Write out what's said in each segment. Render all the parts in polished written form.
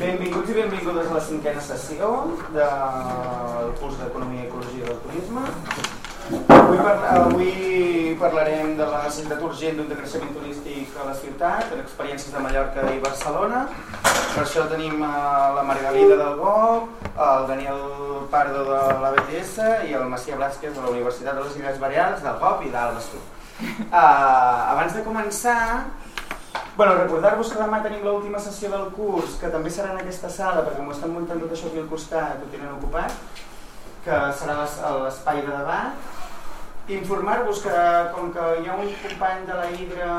Benvinguts i benvingudes a la 5a sessió del curs d'Economia i Ecologia del Turisme. Avui parlarem de la necessitat urgent d'un decreixement turístic a la ciutat, de experiències de Mallorca i Barcelona. Per això tenim la Margalida del GOB, el Daniel Pardo de l'ABTS i el Macià Blázquez de la Universitat de les Illes Balears, del GOB i d'Alba Sud. Abans de començar, recordar-vos que demà tenim l'última sessió del curs, que també serà en aquesta sala, perquè m'ho estan muntant tot això aquí al costat, ho tenen ocupat, que serà l'espai de debat. Informar-vos que, com que hi ha un company de la Hidra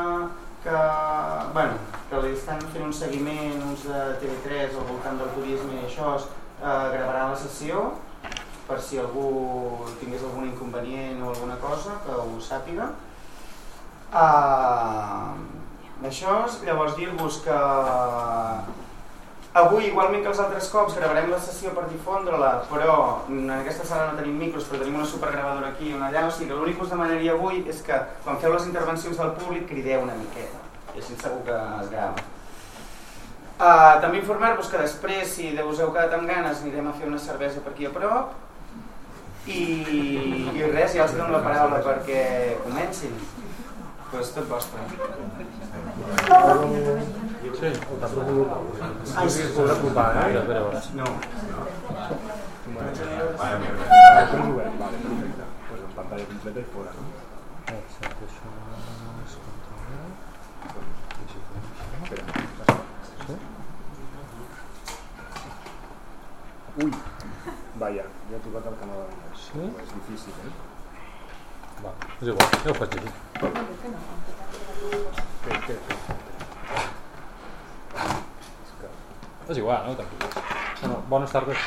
que li estan fent un seguiment, uns de TV3 al voltant del turisme i això, gravarà la sessió, per si algú tingués algun inconvenient o alguna cosa, que ho sàpiga. Això, llavors dir-vos que avui, igualment que els altres cops, gravarem la sessió per difondre-la, però en aquesta sala no tenim micros, però tenim una supergravadora aquí i una allà, o sigui que l'únic que us demanaria avui és que quan feu les intervencions del públic crideu una miqueta, i així segur que es grava. També informar-vos que després, si us heu quedat amb ganes, anirem a fer una cervesa per aquí a prop, i res, ja els dono la paraula perquè comencin. Però és tot vostre. Sí, ai, sí, es podrà provar, eh? No. Vale, perfecte. Pues en pantalla completa i fora, no? Exacte, això és controlar. Ui, vaja, ja he tocat el canal de l'anglès. Sí? És difícil, eh? Va, és igual, ja ho faig així. Què? És igual, no? Tranquil. Bueno, bones tardes.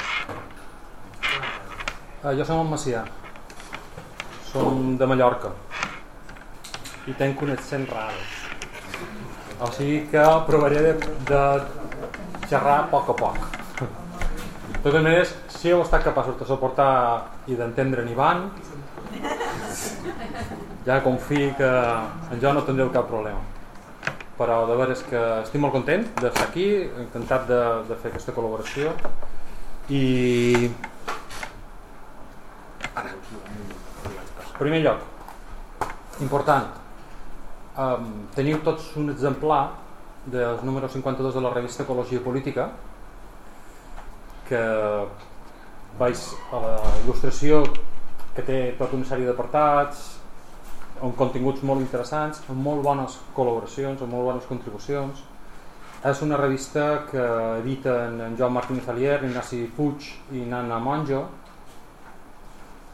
Jo som en Macià. Som de Mallorca. I tenc un accent raro. O sigui que provaré de xerrar a poc. De totes maneres, si heu estat capaços de suportar i d'entendre en Ivan, ja confio que en jo no tindreu cap problema. Però de veres que estic molt content d'estar aquí, encantat de fer aquesta col·laboració i en primer lloc, important, teniu tots un exemplar del número 52 de la revista Ecologia i Política, que veig a la il·lustració que té tota una sèrie d'apartats amb continguts molt interessants, amb molt bones col·laboracions, amb molt bones contribucions. És una revista que editen en Joan Martínez Alier, Ignasi Puig i Nana Monjo,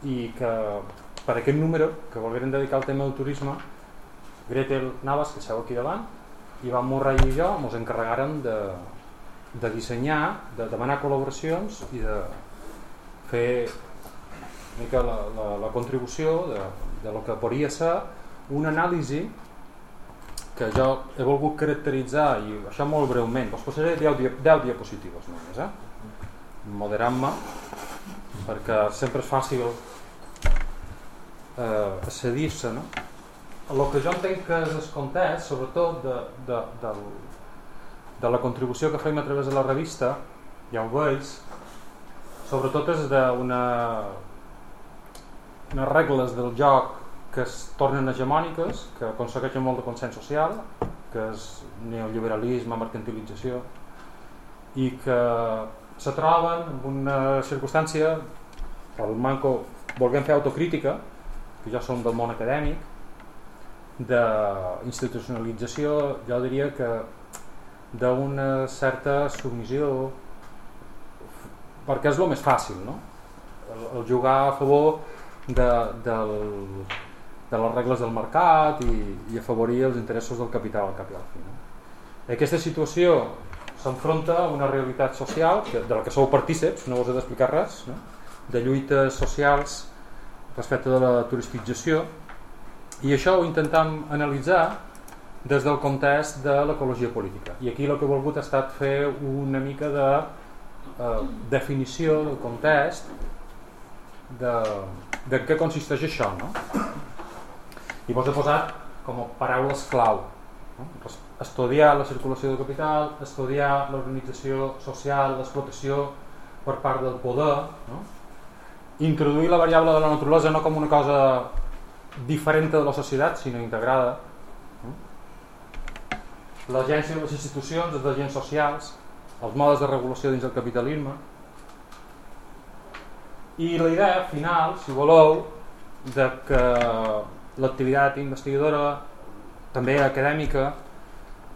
i que per aquest número, que volgueren dedicar al tema del turisme, Gretel Navas, que seu aquí davant, Ivan Murray i jo ens encarregàrem de dissenyar, de demanar col·laboracions i de fer una mica la contribució de lo que podria ser una anàlisi que jo he volgut caracteritzar, i això molt breument, us posaré 10 diapositives només, moderant-me, perquè sempre és fàcil accedir-se, no? El que jo entenc que és el context, sobretot de la contribució que fem a través de la revista, ja ho veig, sobretot és d'unes regles del joc que es tornen hegemòniques, que aconsegueixen molt de consens social, que és neoliberalisme, mercantilització, i que se troben en una circumstància, el manco, volguem fer autocrítica, que ja som del món acadèmic, d'institucionalització, jo diria que d'una certa submissió, perquè és el més fàcil, no? El jugar a favor de les regles del mercat i afavorir els interessos del capital al cap i al fi, no? Aquesta situació s'enfronta a una realitat social de la que sou partíceps, no us he d'explicar res, no? De lluites socials respecte de la turisticització, i això ho intentem analitzar des del context de l'ecologia política, i aquí el que he volgut ha estat fer una mica de definició del context de què consisteix això, no? I vos he posat com a paraules clau, no? estudiar la circulació del capital, estudiar l'organització social, l'explotació per part del poder, no? Introduir la variable de la naturalesa no com una cosa diferent de la societat, sinó integrada, no? L'agència de les institucions, els agents socials, els modes de regulació dins del capitalisme, i la idea final, si voleu, de que l'activitat investigadora, també acadèmica,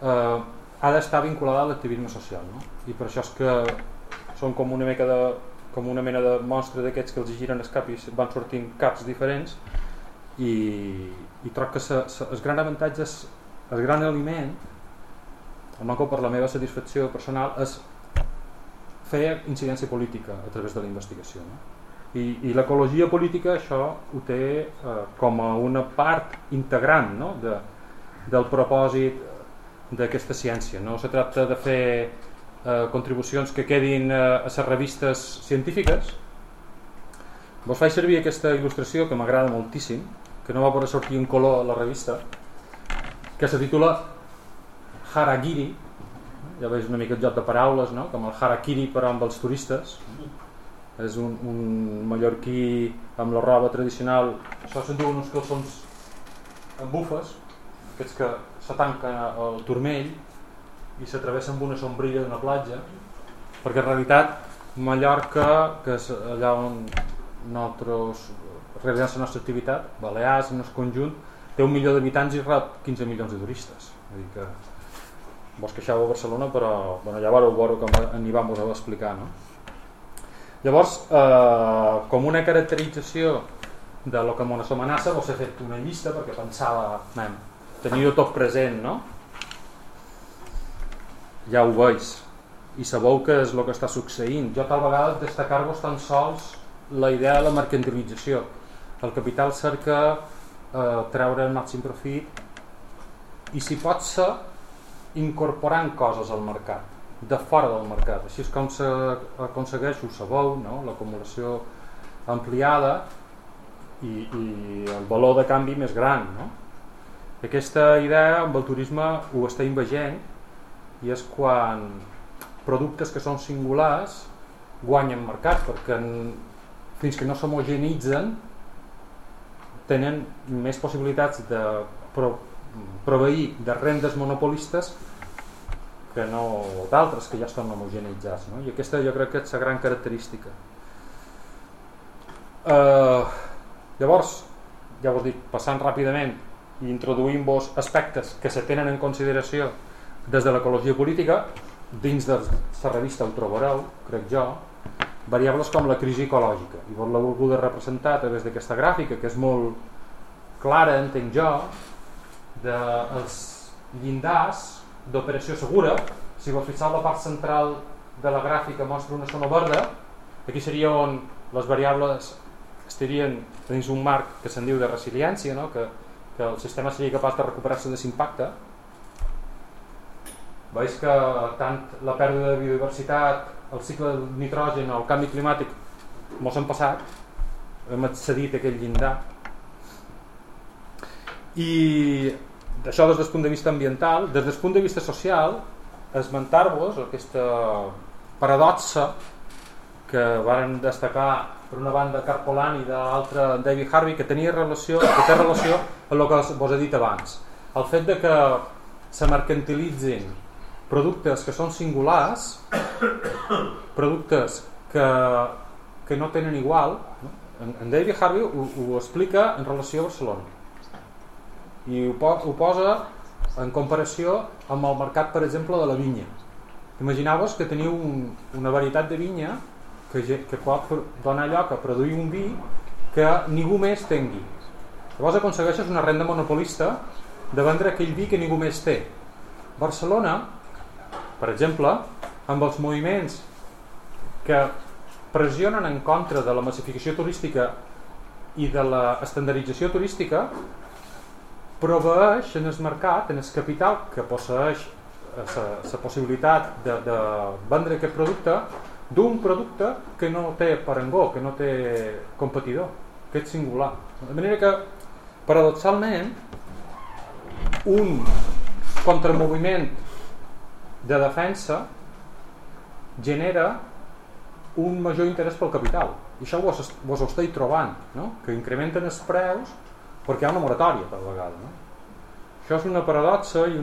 ha d'estar vinculada a l'activisme social, no? I per això és que són com una mena de monstre d'aquests que els giren el cap i van sortint caps diferents, i troc que el gran avantatge, el gran aliment, almenys per la meva satisfacció personal, és fer incidència política a través de la investigació, no? I l'ecologia política això ho té com a una part integrant, no? del propòsit d'aquesta ciència. No se tracta de fer contribucions que quedin a les revistes científiques. Vos faig servir aquesta il·lustració que m'agrada moltíssim, que no va poder sortir en color a la revista, que se titula Harakiri. Ja veus una mica el joc de paraules, no? Com el harakiri però amb els turistes. És un mallorquí amb la roba tradicional. Això se'n diuen uns calçons amb bufes, aquests que se tanquen al turmell i s'atravessen amb una sombrilla d'una platja, perquè en realitat Mallorca, que és allà on nosaltres realitzem la nostra activitat, Balears, en el conjunt, té 1 milió d'habitants i rep 15 milions de turistes. Vull dir que vos queixeu a Barcelona, però bueno, ja vareu veure com n'hi vam vos a explicar, no? Llavors, com una caracterització de lo que ens amenaça, vos he fet una llista perquè pensava tenir-ho tot present, no? Ja ho veig i sabeu què és el que està succeint. Jo tal vegada destacar-vos tan sols la idea de la mercantilització. El capital cerca treure el màxim profit i si pot ser incorporant coses al mercat, de fora del mercat. Així és com s'aconsegueix, ho sabeu, no? L'acumulació ampliada i el valor de canvi més gran, no? Aquesta idea amb el turisme ho està invagent i és quan productes que són singulars guanyen mercat, perquè fins que no s'homogenitzen tenen més possibilitats de proveir de rendes monopolistes que no d'altres que ja estan homogeneitzats, no? I aquesta jo crec que és la gran característica. Llavors, ja us dic, passant ràpidament i introduint-vos aspectes que se tenen en consideració des de l'ecologia política, dins de la revista ho trobareu, crec jo, variables com la crisi ecològica, i vos l'he volgut representar a través d'aquesta gràfica que és molt clara, entenc jo, dels llindars d'operació segura. Si vos fixeu, la part central de la gràfica mostra una zona verda. Aquí seria on les variables estarien dins un marc que se'n diu de resiliència, no? que el sistema seria capaç de recuperar-se de l'impacte. Veus que tant la pèrdua de biodiversitat, el cicle del nitrogen o el canvi climàtic mos han passat, hem accedit a aquell llindar. I això des del punt de vista ambiental. Des del punt de vista social, esmentar-vos aquesta paradoxa que varen destacar per una banda Carpolani i de l'altra David Harvey, que té relació amb el que vos he dit abans. El fet de que se mercantilitzin productes que són singulars, productes que no tenen igual, no? En David Harvey ho explica en relació a Barcelona i ho posa en comparació amb el mercat, per exemple, de la vinya. Imagineu-vos que teniu una varietat de vinya que pot donar lloc a produir un vi que ningú més tingui. Llavors aconsegueixes una renda monopolista de vendre aquell vi que ningú més té. Barcelona, per exemple, amb els moviments que pressionen en contra de la massificació turística i de l'estandardització turística, proveeix en el mercat, en el capital que posseeix la possibilitat de vendre aquest producte, d'un producte que no té parangó, que no té competidor, que és singular. De manera que, paradoxalment, un contramoviment de defensa genera un major interès pel capital, i això vos ho esteu trobant, no? Que incrementen els preus perquè hi ha una moratòria per vegada, no? Això és una paradoxa i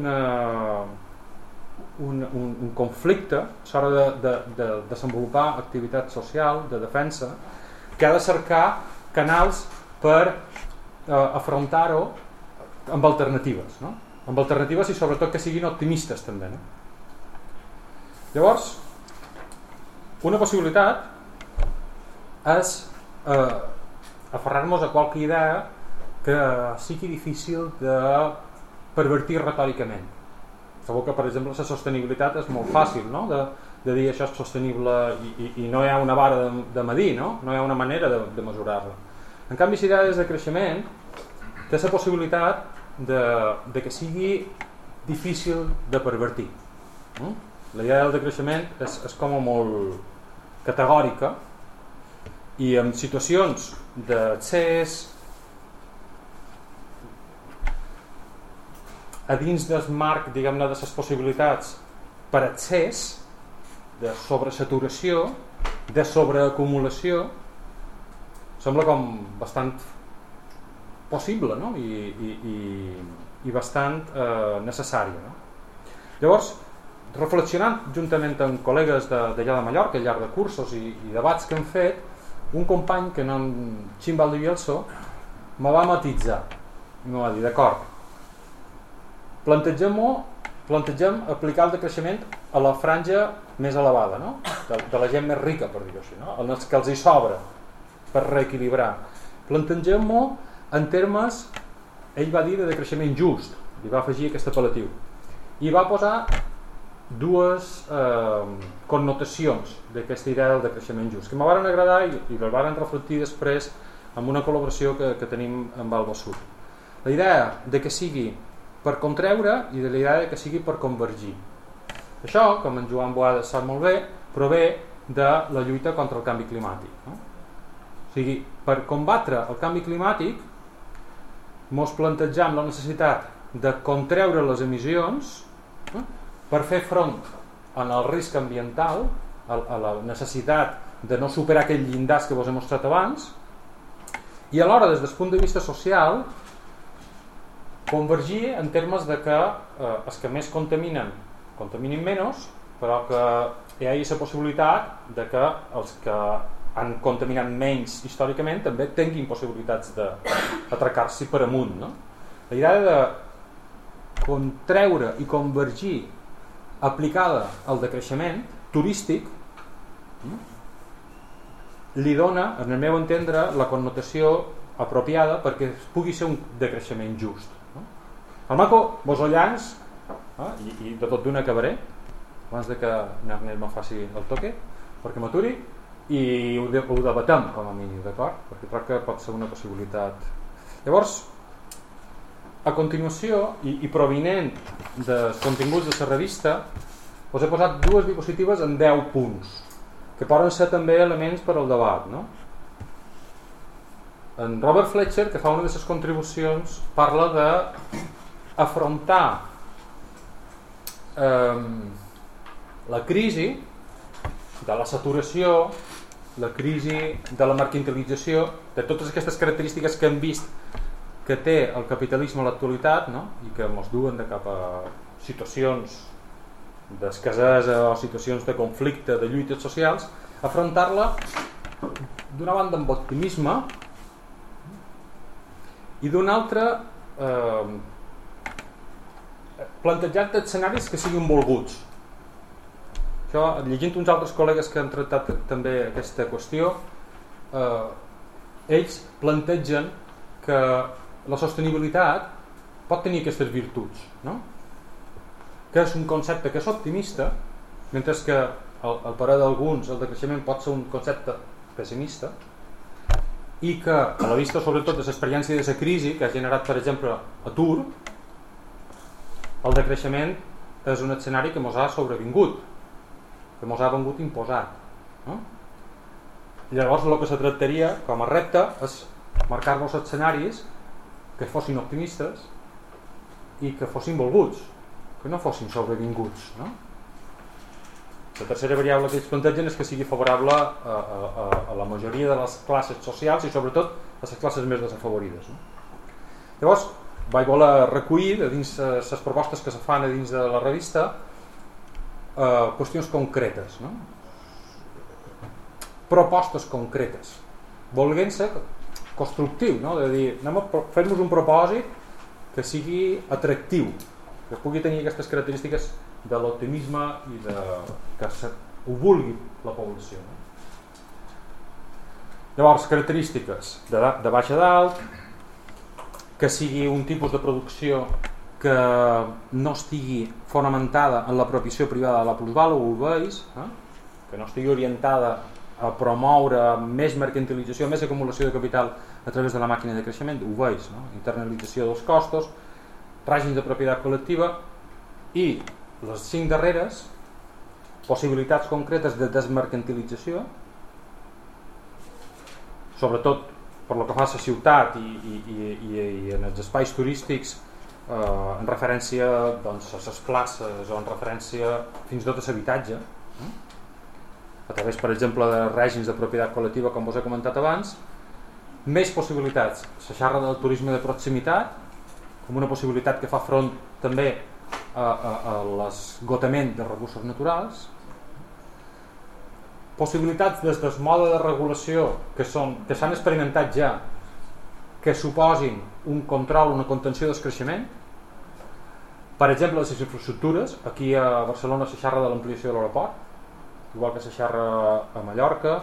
un conflicte a l'hora de desenvolupar activitat social, de defensa, que ha de cercar canals per afrontar-ho amb alternatives, no? Amb alternatives i sobretot que siguin optimistes també, no? Llavors, una possibilitat és aferrar-nos a qualque idea que sigui difícil de pervertir retòricament. Sabeu que, per exemple, la sostenibilitat és molt fàcil, no? De dir això és sostenible i no hi ha una vara de medir, no? No hi ha una manera de mesurar-la. En canvi, si hi ha des de creixement, té la possibilitat de que sigui difícil de pervertir. La idea del decreixement és com a molt categòrica, i en situacions d'accés a dins del marc, diguem-ne, de les possibilitats per accés, de sobresaturació, de sobreacumulació, sembla com bastant possible, no? I bastant necessària, no? Llavors, reflexionant juntament amb col·legues d'allà de Mallorca, al llarg de cursos i debats que hem fet, un company que no en Xim Valdivielso me va matitzar i me va dir, d'acord, plantegem aplicar el decreixement a la franja més elevada, no? de la gent més rica, per dir-ho així, no? Els que els hi sobra per reequilibrar. Plantegem-ho en termes, ell va dir, de decreixement just, i va afegir aquest apel·latiu, i va posar dues connotacions d'aquesta idea del decreixement just, que m'ho van agradar i les van reflectir després amb una col·laboració que tenim amb Alba Sud. La idea de que sigui per contreure i de la idea de que sigui per convergir. Això, com en Joan Boada sap molt bé, prové de la lluita contra el canvi climàtic, no? O sigui, per combatre el canvi climàtic mos plantegem la necessitat de contreure les emissions, no? Per fer front al risc ambiental, a la necessitat de no superar aquell llindars que vos he mostrat abans, i alhora, des del punt de vista social, convergir en termes de que els que més contaminen menys, però que hi hagi la possibilitat de que els que han contaminat menys històricament també tinguin possibilitats d'atracar-s'hi per amunt, no? La idea de contreure i convergir aplicada al decreixement turístic li dona, en el meu entendre, la connotació apropiada perquè pugui ser un decreixement just, no? El maco, vos ho llanç, i de tot d'una acabaré abans de que Nernell me faci el toque perquè m'aturi i ho debatem com a mínim, d'acord? Perquè crec que pot ser una possibilitat. Llavors, a continuació, i provinent dels continguts de la revista, us he posat dues diapositives en 10 punts, que poden ser també elements per al debat, no? En Robert Fletcher, que fa una de les contribucions, parla d'afrontar la crisi de la saturació, la crisi de la mercantilització, de totes aquestes característiques que hem vist que té el capitalisme a l'actualitat, no? I que ens duen de cap a situacions d'escasesa o situacions de conflicte, de lluites socials, afrontar-la d'una banda amb optimisme i d'una altra plantejant escenaris que siguin volguts. Això, llegint uns altres col·legues que han tractat també aquesta qüestió, ells plantegen que la sostenibilitat pot tenir aquestes virtuts, no? Que és un concepte que és optimista, mentre que al parer d'alguns el decreixement pot ser un concepte pessimista, i que a la vista sobretot de l'experiència de la crisi que ha generat, per exemple, atur, el decreixement és un escenari que ens ha sobrevingut, que ens ha vengut imposat, no? I llavors el que se tractaria com a repte és marcar-nos escenaris que fossin optimistes i que fossin volguts, que no fossin sobrevinguts, no? La tercera variable que ells plantegen és que sigui favorable a la majoria de les classes socials i sobretot a les classes més desafavorides, no? Llavors vaig voler recollir de dins les propostes que se fan a dins de la revista qüestions concretes, no? Propostes concretes, volent ser constructiu, no? De dir, anem a fer-nos un propòsit que sigui atractiu, que pugui tenir aquestes característiques de l'optimisme i que ho vulgui la població, no? Llavors, característiques de baix a dalt, que sigui un tipus de producció que no estigui fonamentada en la propieció privada de la plusvàlua, ho veus, que no estigui orientada a promoure més mercantilització, més acumulació de capital a través de la màquina de creixement, ho veus, no? Internalització dels costos, règims de propietat col·lectiva i les 5 darreres, possibilitats concretes de desmercantilització, sobretot per lo que fa a la ciutat i en els espais turístics, en referència doncs, a les places o en referència fins i tot a l'habitatge, a través, per exemple, de règims de propietat col·lectiva, com us he comentat abans. Més possibilitats, se xerra del turisme de proximitat com una possibilitat que fa front també a l'esgotament de recursos naturals, possibilitats des del mode de regulació que s'han experimentat ja, que suposin un control, una contenció del creixement. Per exemple, les infraestructures, aquí a Barcelona se xerra de l'ampliació de l'aeroport, igual que se xerra a Mallorca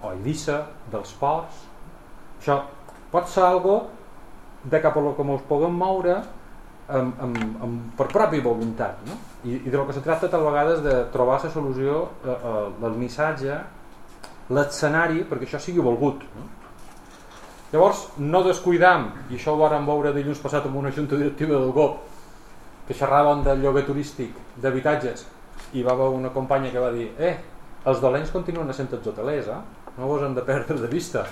o a Eivissa, dels ports. Això pot ser algo de cap a lo que ens puguem moure per pròpia voluntat, no? I de lo que se tracta tal vegades de trobar la solució, el missatge, l'escenari perquè això sigui volgut, no? Llavors no descuidam, i això ho vam veure dilluns passat amb una junta directiva del GOP que xerraven del lloguer turístic d'habitatges i va haver una companya que va dir els dolents continuen sent els hotelers, no vos hem de perdre de vista.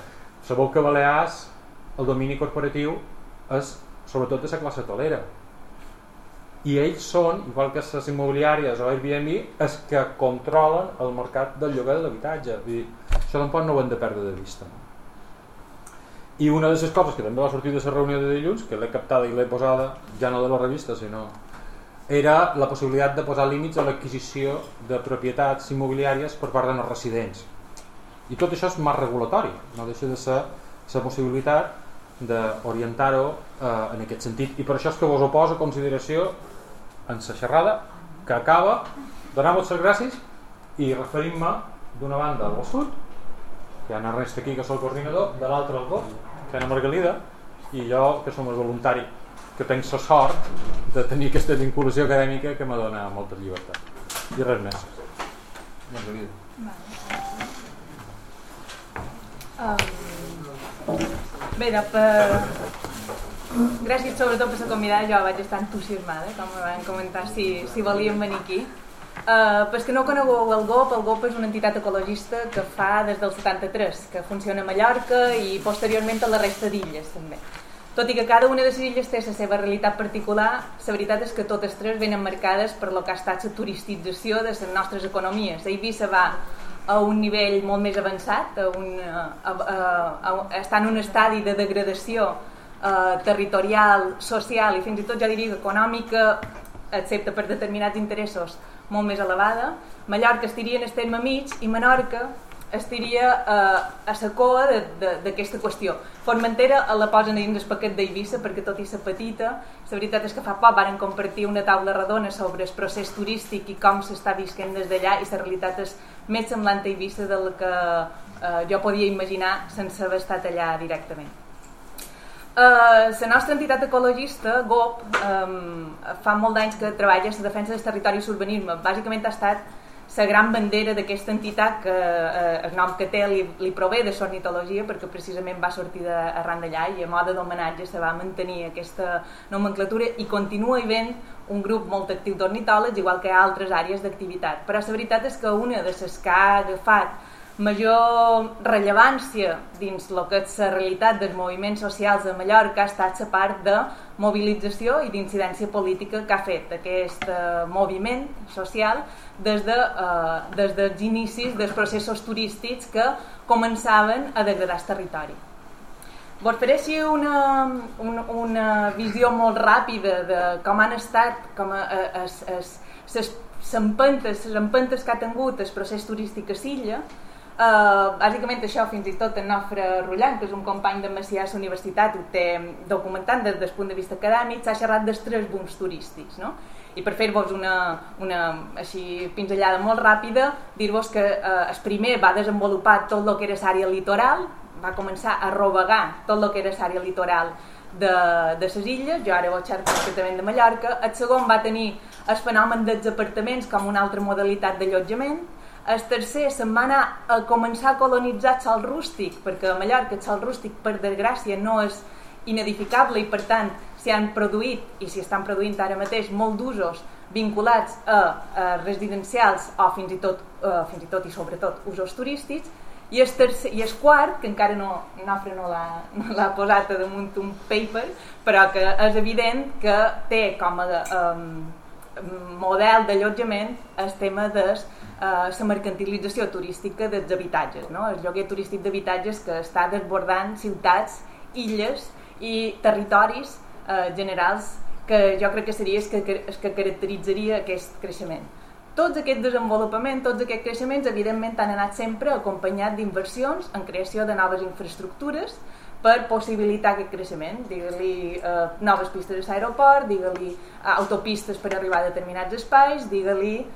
Sabeu que a Balears el domini corporatiu és sobretot de la classe hotelera i ells són, igual que les immobiliàries o Airbnb, els que controlen el mercat del lloguer de l'habitatge. Això tampoc no ho hem de perdre de vista, no? I una de les coses que també va sortir de la reunió de dilluns, que l'he captada i l'he posada ja no de la revista, sinó era la possibilitat de posar límits a l'adquisició de propietats immobiliàries per part dels residents. I tot això és marc regulatori, no deixa de ser la possibilitat d'orientar-ho en aquest sentit. I per això és que vos ho poso a consideració en la xerrada que acaba. Donem-vos les gràcies i referim-me d'una banda al sud, que hi ha Ernest aquí que és el coordinador, de l'altra al GOP, que hi ha Margalida, i jo que som el voluntari, que tenc la sort de tenir aquesta vinculació acadèmica que me dona molta llibertat. I res més. Margalida. Bé, gràcies sobretot per la convidada. Jo vaig estar entusiasmada, com me van comentar, si volíem venir aquí. Per que no conegueu el GOP és una entitat ecologista que fa des del 73, que funciona a Mallorca i posteriorment a la resta d'illes també. Tot i que cada una de les illes té la seva realitat particular, la veritat és que totes tres venen marcades per lo que ha estat la turisticització de les nostres economies. Eivissa va a un nivell molt més avançat, està en un estadi de degradació territorial, social i fins i tot jo diria econòmica, excepte per determinats interessos, molt més elevada. Mallorca estiria en el terme mig i Menorca estiria a la coa d'aquesta qüestió. Formentera la posen dins el paquet d'Eivissa perquè tot i ser petita, la veritat és que fa poc varen compartir una taula redona sobre el procés turístic i com s'està visquent des d'allà, i la realitat és més semblant a Eivissa del que jo podia imaginar sense haver estat allà directament. La nostra entitat ecologista, GOP, fa molt d'anys que treballa en la defensa del territori i l'urbanisme. Bàsicament ha estat la gran bandera d'aquesta entitat, que el nom que té li prové de l'ornitologia, perquè precisament va sortir arran d'allà i a mode d'homenatge se va mantenir aquesta nomenclatura i continua havent un grup molt actiu d'ornitòlegs, igual que altres àrees d'activitat. Però la veritat és que una de les que ha agafat major rellevància dins el que és la realitat dels moviments socials de Mallorca ha estat la part de mobilització i d'incidència política que ha fet aquest moviment social des dels inicis dels processos turístics que començaven a degradar el territori. Vos faré així una visió molt ràpida de com han estat les empentes que ha tingut el procés turístic a l'illa. Bàsicament això, fins i tot en Nofre Rullant, que és un company de Macià a la universitat, ho té documentant des del punt de vista acadèmic, s'ha xerrat dels 3 booms turístics, no? I per fer-vos una així pinzellada molt ràpida, dir-vos que el primer va desenvolupar tot el que era l'àrea litoral, va començar a rovegar tot el que era l'àrea litoral de les illes, jo ara ho xerro concretament de Mallorca. El segon va tenir el fenomen dels apartaments com una altra modalitat d'allotjament. El tercer se'n va anar a començar a colonitzar el sòl rústic, perquè a Mallorca el sòl rústic, per desgràcia, no és inedificable i per tant s'hi han produït i s'hi estan produint ara mateix molt d'usos vinculats a residencials o fins i tot i sobretot usos turístics. I el quart, que encara Nofre no l'ha posat damunt un paper, però que és evident que té com a model d'allotjament el tema de la mercantilització turística dels habitatges, no? El lloguer turístic d'habitatges que està desbordant ciutats, illes i territoris generals, que jo crec que seria el que caracteritzaria aquest creixement. Tots aquests desenvolupaments, tots aquests creixements, evidentment han anat sempre acompanyats d'inversions en creació de noves infraestructures per possibilitar aquest creixement. Digue-li noves pistes a l'aeroport, digue-li autopistes per arribar a determinats espais, digue-li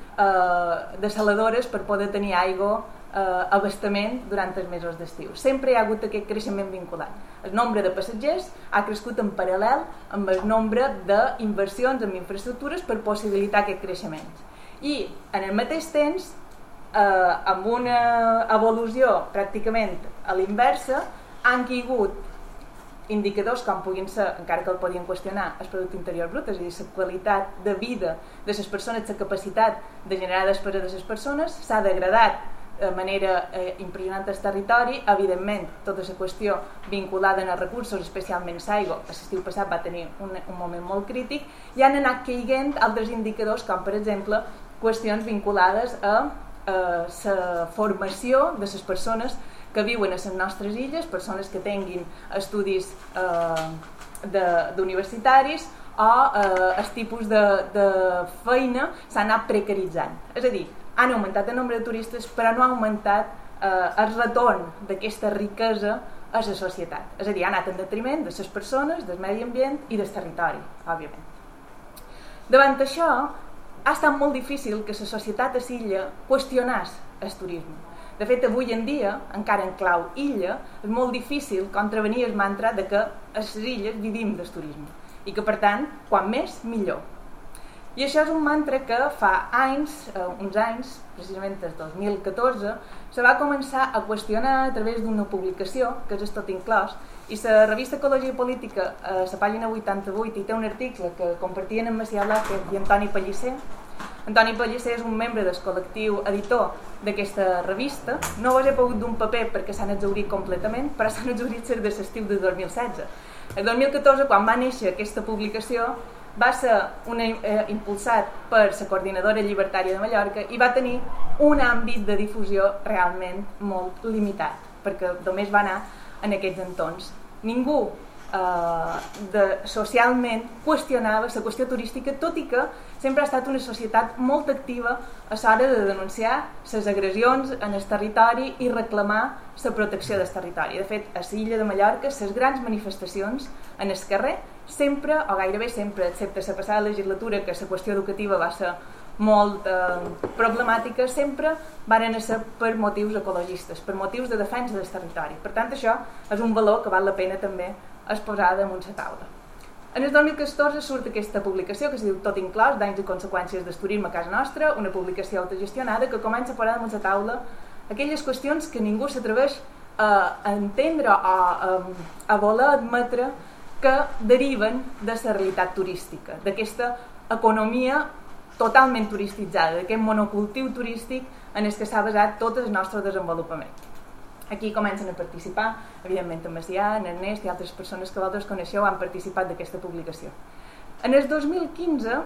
dessaladores per poder tenir aigua, abastament durant els mesos d'estiu. Sempre hi ha hagut aquest creixement vinculat. El nombre de passatgers ha crescut en paral·lel amb el nombre d'inversions en infraestructures per possibilitar aquest creixement. I en el mateix temps, amb una evolució pràcticament a l'inversa, han caigut indicadors com puguin ser, encara que el podien qüestionar, el producte interior brut, és a dir, la qualitat de vida de les persones, la capacitat de generar despesa de les persones, s'ha degradat de manera impressionant el territori. Evidentment, tota la qüestió vinculada als recursos, especialment l'aigua, l'estiu passat va tenir un moment molt crític, i han anat caiguent altres indicadors, com per exemple qüestions vinculades a la formació de les persones que viuen a les nostres illes, persones que tinguin estudis universitaris, o el tipus de feina s'ha anat precaritzant. És a dir, han augmentat el nombre de turistes, però no ha augmentat el retorn d'aquesta riquesa a la societat. És a dir, ha anat en detriment de les persones, del medi ambient i del territori, òbviament. Davant això, ha estat molt difícil que la societat a l'illa qüestionés el turisme. De fet, avui en dia, encara en clau illa, és molt difícil contravenir el mantra de que a les illes vivim del turisme i que, per tant, quan més, millor. I això és un mantra que fa uns anys, precisament des del 2014, se va començar a qüestionar a través d'una publicació, que és Tot Inclòs, i la revista Ecologia i Política, a la pàgina 88, hi té un article que compartien en Macià Blázquez i Antoni Pellicer. Antoni Pellicer és un membre del col·lectiu editor d'aquesta revista. No vos he pogut d'un paper perquè s'han exhaurit completament, però s'han exhaurit des de l'estiu de 2016. El 2014, quan va néixer aquesta publicació, va ser impulsat per la Coordinadora Llibertària de Mallorca i va tenir un àmbit de difusió realment molt limitat, perquè només va anar en aquests entorns. Ningú socialment qüestionava la qüestió turística, tot i que sempre ha estat una societat molt activa a l'hora de denunciar les agressions en el territori i reclamar la protecció del territori. De fet, a l'illa de Mallorca, les grans manifestacions en el carrer, sempre, o gairebé sempre, excepte la passada legislatura, que la qüestió educativa va ser molt problemàtica, sempre van ser per motius ecologistes, per motius de defensa del territori. Per tant, això és un valor que val la pena també exposar damunt la taula. En el 2014 surt aquesta publicació que es diu Tot Inclòs, danys i conseqüències del turisme a casa nostra, una publicació autogestionada que comença a posar damunt la taula aquelles qüestions que ningú s'atreveix a entendre o a voler admetre que deriven de la realitat turística, d'aquesta economia totalment turistitzada, d'aquest monocultiu turístic en el que s'ha basat tot el nostre desenvolupament. Aquí comencen a participar, evidentment en Macià, en Ernest i altres persones que vosaltres coneixeu han participat d'aquesta publicació. En el 2015,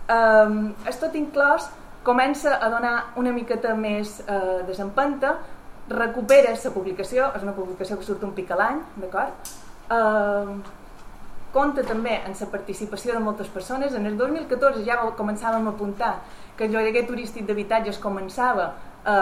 el Tot Inclòs comença a donar una miqueta més desempenta, recupera la publicació, és una publicació que surt un pic a l'any, d'acord? Compta també en la participació de moltes persones. En el 2014 ja començàvem a apuntar que el lloguer turístic d'habitatges començava a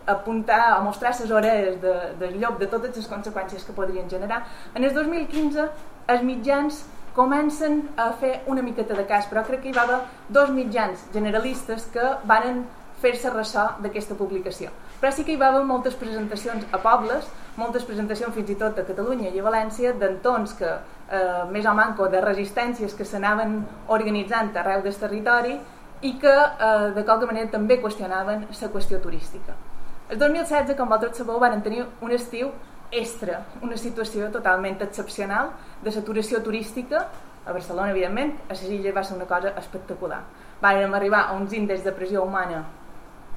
apuntar, a mostrar les orelles del llop de totes les conseqüències que podrien generar. En el 2015 els mitjans comencen a fer una miqueta de cas, però crec que hi va haver 2 mitjans generalistes que van fer-se ressò d'aquesta publicació. Però sí que hi va haver moltes presentacions a pobles, moltes presentacions fins i tot a Catalunya i a València, d'entorns que, més o manco, de resistències que s'anaven organitzant arreu del territori i que, de qualque manera, també qüestionaven la qüestió turística. El 2016, com vosaltres sabeu, van tenir un estiu extra, una situació totalment excepcional de saturació turística a Barcelona, evidentment. A les illes va ser una cosa espectacular. Vam arribar a uns índexs de pressió humana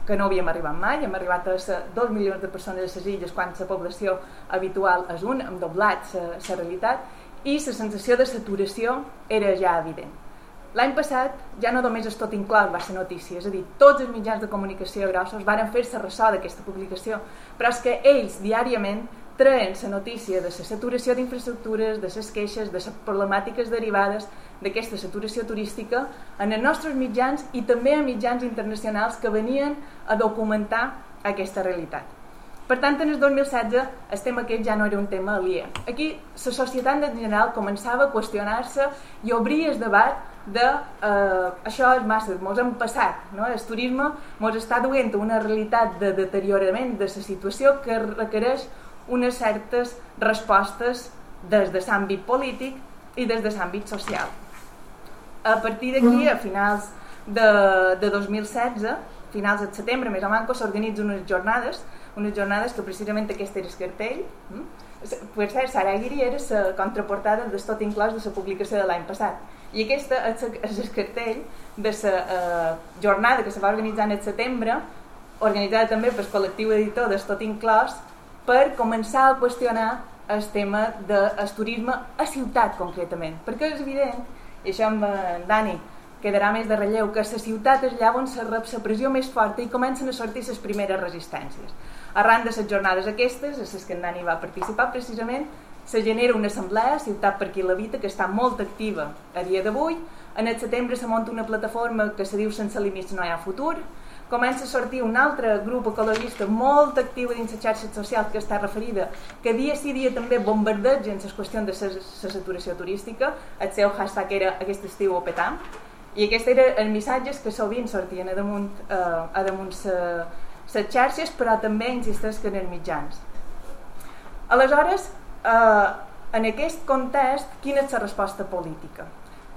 que no havíem arribat mai. Hem arribat a 2 milions de persones a les illes quan la població habitual és un, hem doblat la realitat i la sensació de saturació era ja evident. L'any passat ja no només el Tot Inclòs va ser notícia, és a dir, tots els mitjans de comunicació grossos van fer-se ressò d'aquesta publicació, però és que ells diàriament traen la notícia de la saturació d'infraestructures, de les queixes, de les problemàtiques derivades d'aquesta saturació turística en els nostres mitjans i també a mitjans internacionals que venien a documentar aquesta realitat. Per tant, en el 2016 el tema aquest ja no era un tema aliè. Aquí la societat en general començava a qüestionar-se i obrir el debat de això és massa, ens hem passat, no? El turisme ens està duent a una realitat de deteriorament de la situació que requereix unes certes respostes des de l'àmbit polític i des de l'àmbit social. A partir d'aquí, a finals de 2016, finals de setembre, més o menys, s'organitzen unes jornades que precisament aquest era el cartell. Per cert, Sara Aguirre era la contraportada del Tot Inclòs de la publicació de l'any passat. I aquest és el cartell de la jornada que se va organitzar en setembre, organitzada també pel col·lectiu editor del Tot Inclòs, per començar a qüestionar el tema del turisme a ciutat concretament, perquè és evident, i això amb en Dani quedarà més de relleu, que la ciutat és allà on se rep la pressió més forta i comencen a sortir les primeres resistències. Arran de les jornades aquestes, a les que en Dani va participar precisament, se genera una assemblea, Ciutat per qui l'habita, que està molt activa a dia d'avui. En el setembre se munta una plataforma que se diu Sense límits no hi ha futur. Comença a sortir un altre grup ecologista molt actiu dins les xarxes socials que està referida, que dia sí dia també bombardegen les qüestions de la saturació turística. El seu hashtag era aquest estiu ho petam, i aquests eren els missatges que sovint sortien a damunt les xarxes, però també insisteix que en els mitjans. Aleshores, en aquest context, quina és la resposta política?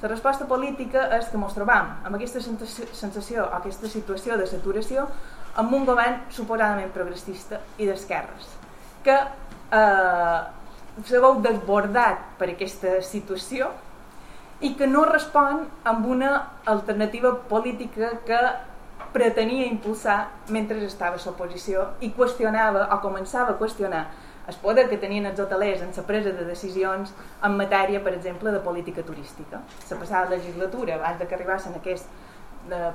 La resposta política és que ens trobam amb aquesta sensació, aquesta situació de saturació, amb un govern suposadament progressista i d'esquerres, que se veu desbordat per aquesta situació i que no respon amb una alternativa política que pretenia impulsar mentre estava a l'oposició i qüestionava o començava a qüestionar el poder que tenien els hotelers en la presa de decisions en matèria, per exemple, de política turística. La passada legislatura, abans que arribassin aquests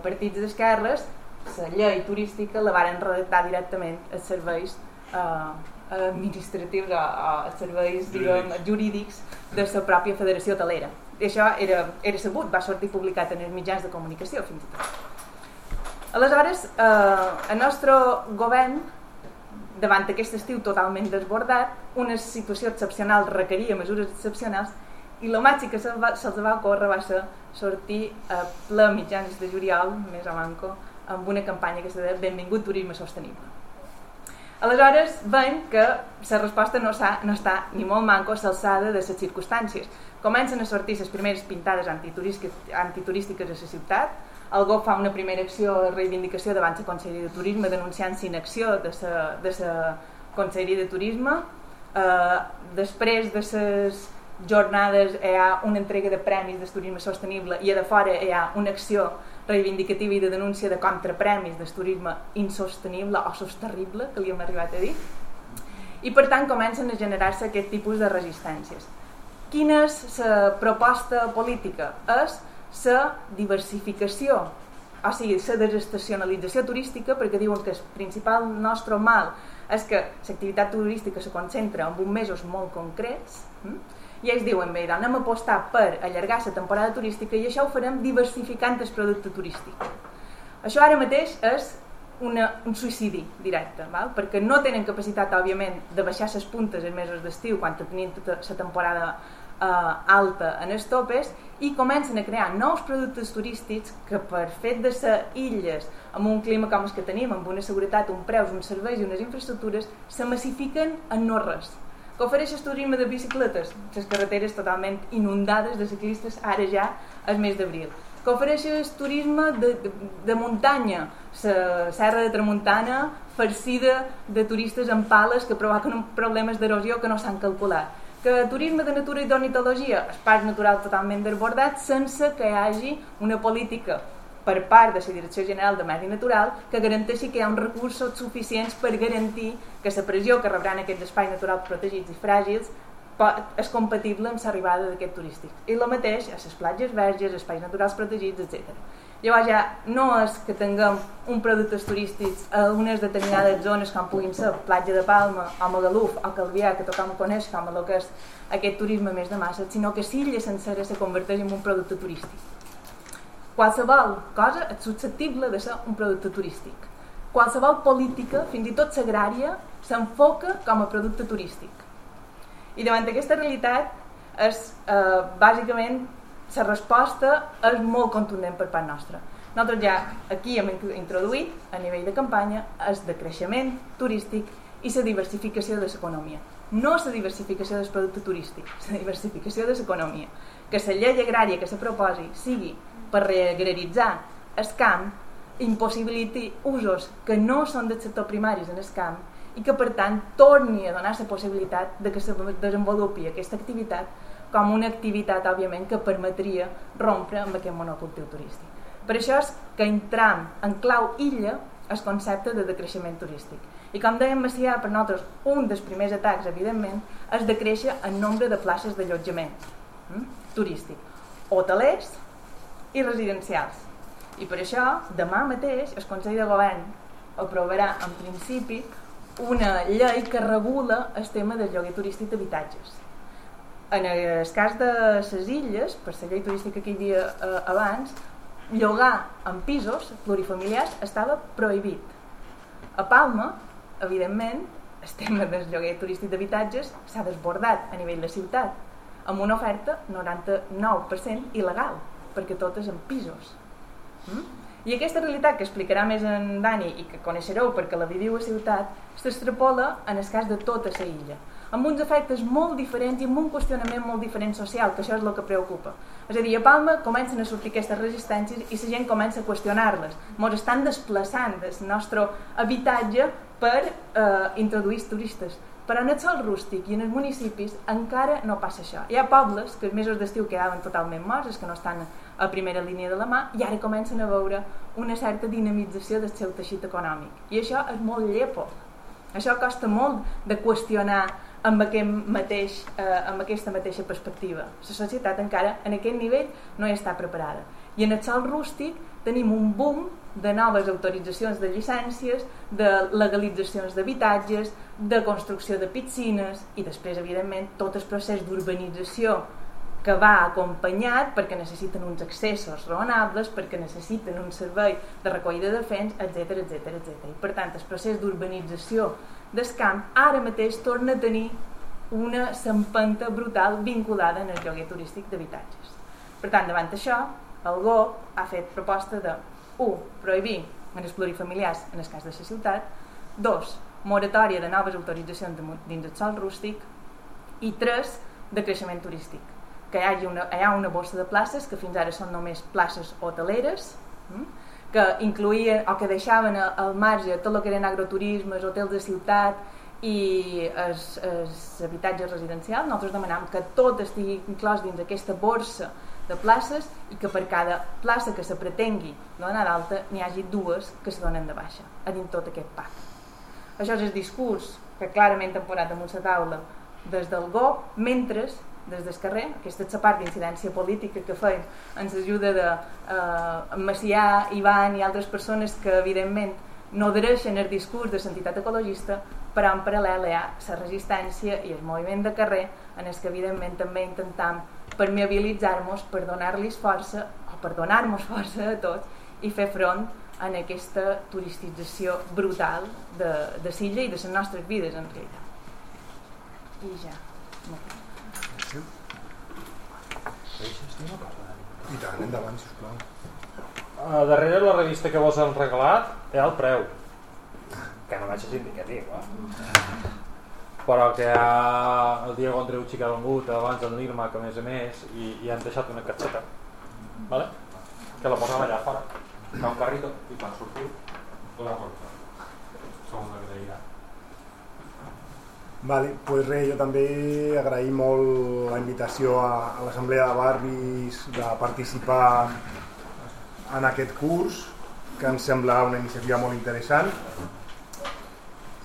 partits d'esquerres, la llei turística la varen redactar directament als serveis administratius o als serveis jurídics de la pròpia Federació Hotelera. I això era sabut, va sortir publicat en els mitjans de comunicació fins i tot. Aleshores, el nostre govern, davant aquest estiu totalment desbordat, una situació excepcional requeria mesures excepcionals i el màxim que se'ls va ocórrer va ser sortir a ple mitjans de juliol, més o manco, amb una campanya que se deia Benvingut turisme sostenible. Aleshores veiem que la resposta no està ni molt manco a l'alçada de les circumstàncies. Comencen a sortir les primeres pintades antiturístiques a la ciutat. El GOV fa una primera acció de reivindicació davant la Conselleria de Turisme denunciant l'inacció de la Conselleria de Turisme. Després de les jornades hi ha una entrega de premis del turisme sostenible i a de fora hi ha una acció reivindicativa i de denúncia de contrapremis del turisme insostenible o sosterrible, que li hem arribat a dir, i per tant comencen a generar-se aquest tipus de resistències. Quina és la proposta política? És la diversificació, o sigui, la desestacionalització turística, perquè diuen que el principal nostre mal és que l'activitat turística se concentra en uns mesos molt concrets, i ells diuen, bé, anem a apostar per allargar la temporada turística i això ho farem diversificant el producte turístic. Això ara mateix és un suïcidi directe, val? Perquè no tenen capacitat, òbviament, de baixar les puntes en mesos d'estiu quan tenim tota la temporada alta en els topes, i comencen a crear nous productes turístics que, per fet de ser illes amb un clima com el que tenim, amb una seguretat, un preus, uns serveis i unes infraestructures, se massifiquen en no res. Que ofereix el turisme de bicicletes, les carreteres totalment inundades de ciclistes ara ja al mes d'abril. Que ofereix el turisme de muntanya, la serra de Tramuntana farcida de turistes amb pales que provoquen problemes d'erosió que no s'han calculat. Que turisme de natura i d'ornitologia, espais naturals totalment desbordats sense que hi hagi una política per part de la Direcció General de Medi Natural que garanteixi que hi ha uns recursos suficients per garantir que la pressió que rebran aquests espais naturals protegits i fràgils és compatible amb l'arribada d'aquest turístic. I el mateix a les platges verges, espais naturals protegits, etc. Llavors ja no és que tinguem un productes turístics a unes determinades zones com puguin ser Platja de Palma o Magaluf o Calvià, que tothom coneix com el que és aquest turisme més de massa, sinó que l'illa sencera se converteix en un producte turístic. Qualsevol cosa és susceptible de ser un producte turístic. Qualsevol política, fins i tot l'agrària, s'enfoca com a producte turístic. I davant d'aquesta realitat, bàsicament, la resposta és molt contundent per part nostra. Nosaltres ja aquí hem introduït, a nivell de campanya, el decreixement turístic i la diversificació de l'economia. No la diversificació del producte turístic, la diversificació de l'economia. Que la llei agrària que se proposi sigui per reagraritzar el camp, impossibiliti usos que no són del sector primaris en el camp i que per tant torni a donar la possibilitat de que se desenvolupi aquesta activitat com una activitat, òbviament, que permetria rompre amb aquest monocultiu turístic. Per això és que entram en clau illa el concepte de decreixement turístic. I com dèiem Macià, per nosaltres un dels primers atacs, evidentment, és decréixer el nombre de places d'allotjament turístic, hotelers i residencials. I per això, demà mateix, el Consell de Govern aprovarà, en principi, una llei que regula el tema del lloguer turístic d'habitatges. En el cas de les illes, per la llei turística que hi havia abans, llogar en pisos plurifamiliars estava prohibit. A Palma, evidentment, el tema del lloguer turístic d'habitatges s'ha desbordat a nivell de ciutat, amb una oferta 99% il·legal, perquè tot és en pisos. I aquesta realitat que explicarà més en Dani i que coneixereu perquè la viviu a ciutat, s'extrapola en el cas de tota la illa, amb uns efectes molt diferents i amb un qüestionament molt diferent social, que això és el que preocupa. És a dir, a Palma comencen a sortir aquestes resistències i la gent comença a qüestionar-les. Ens estan desplaçant del nostre habitatge per introduir turistes. Però en el sòl rústic i en els municipis encara no passa això. Hi ha pobles que els mesos d'estiu quedaven totalment morts, els que no estan a primera línia de la mà, i ara comencen a veure una certa dinamització del seu teixit econòmic. I això és molt llepo. Això costa molt de qüestionar amb aquesta mateixa perspectiva. La societat encara en aquest nivell no hi està preparada. I en el sòl rústic tenim un boom de noves autoritzacions de llicències, de legalitzacions d'habitatges, de construcció de piscines i després, evidentment, tot el procés d'urbanització que va acompanyat perquè necessiten uns accessos raonables, perquè necessiten un servei de recollida de fens, etc. I per tant, el procés d'urbanització del camp ara mateix torna a tenir una empenta brutal vinculada en el lloguer turístic d'habitatges. Per tant, davant això, el GOP ha fet proposta de 1. Prohibir en els plurifamiliars en el cas de la ciutat, 2. Moratòria de noves autoritzacions dins el sòl rústic i 3. Decreixement turístic, que hi ha una borsa de places que fins ara són només places hoteleres, que incluïen o que deixaven al marge tot el que eren agroturismes, hotels de ciutat i els habitatges residencials. Nosaltres demanam que tot estigui inclòs dins aquesta borsa de places i que per cada plaça que se pretengui donar d'alta n'hi hagi 2 que se donen de baixa a dins tot aquest pacte. Això és el discurs que clarament hem posat damunt la taula des del GOP, mentre des del carrer, aquesta és la part d'incidència política que feim ens ajuda de Macià, Ivan i altres persones que evidentment no adhereixen el discurs de l'entitat ecologista, però en paral·lel hi ha la resistència i el moviment de carrer en el que evidentment també intentam permeabilitzar-nos per donar-los força o per donar-nos força a tots i fer front en aquesta turistització brutal de Silla i de les nostres vides en realitat. I ja. I tant, endavant, sisplau. Darrere la revista que vos han regalat hi ha el preu, que no vaig ser indicatiu, però que hi ha el Diego Andreucci que ha vengut abans del Nirma, que a més i han deixat una capseta, vale? Que la posem allà fora, fa un carrito i quan sortiu la porta. Som una agraïda. Vale, pues res, jo també agraïm molt la invitació a l'Assemblea de Barris de participar en aquest curs, que ens sembla una iniciativa molt interessant.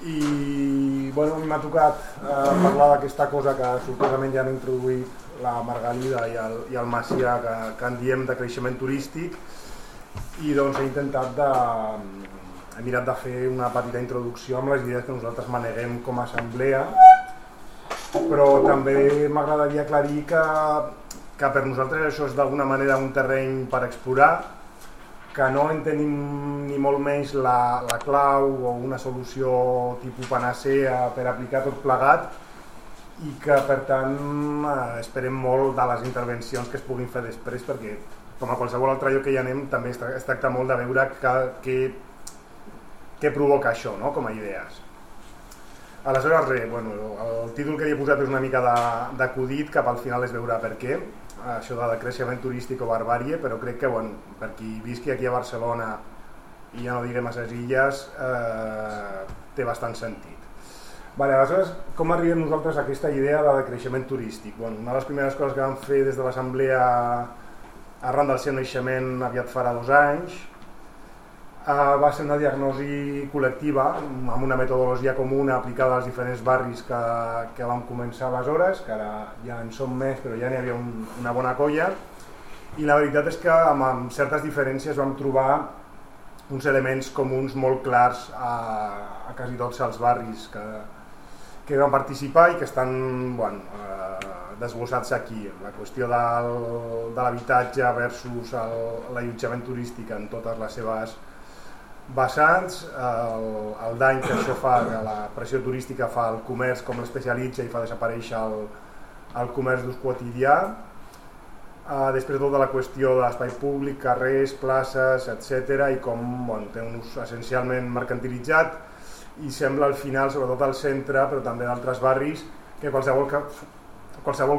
I bueno, a mi m'ha tocat parlar d'aquesta cosa que sortosament ja han introduït la Margalida i el Macià, que en diem de creixement turístic, i doncs he mirat de fer una petita introducció amb les idees que nosaltres maneguem com a assemblea, però també m'agradaria aclarir que per nosaltres això és d'alguna manera un terreny per explorar, que no en tenim ni molt menys la clau o una solució tipus panacea per aplicar tot plegat, i que per tant esperem molt de les intervencions que es puguin fer després, perquè com a qualsevol altre lloc que hi anem també es tracta molt de veure què provoca això, no? Com a idees. Aleshores res, bueno, el títol que hi he posat és una mica d'acudit, cap al final es veurà per què, això de creixement turístic o barbàrie, però crec que bueno, per qui visqui aquí a Barcelona i ja no diguem a les illes té bastant sentit. Vale, aleshores, com arribem nosaltres a aquesta idea de creixement turístic? Bueno, una de les primeres coses que vam fer des de l'Assemblea arran del seu naixement aviat farà 2 anys va ser una diagnosi col·lectiva amb una metodologia comuna aplicada als diferents barris que vam començar aleshores, que ara ja en som més però ja n'hi havia una bona colla, i la veritat és que amb certes diferències vam trobar uns elements comuns molt clars a quasi tots els barris que van participar i que estan desglossats aquí. La qüestió de l'habitatge versus l'allotjament turístic en totes les seves vessants, el dany que això fa, que la pressió turística fa al comerç, com l'especialitza i fa desaparèixer el comerç d'ús quotidià. Després tota la qüestió de l'espai públic, carrers, places, etc. i com té un ús essencialment mercantilitzat i sembla al final, sobretot al centre, però també d'altres barris, que qualsevol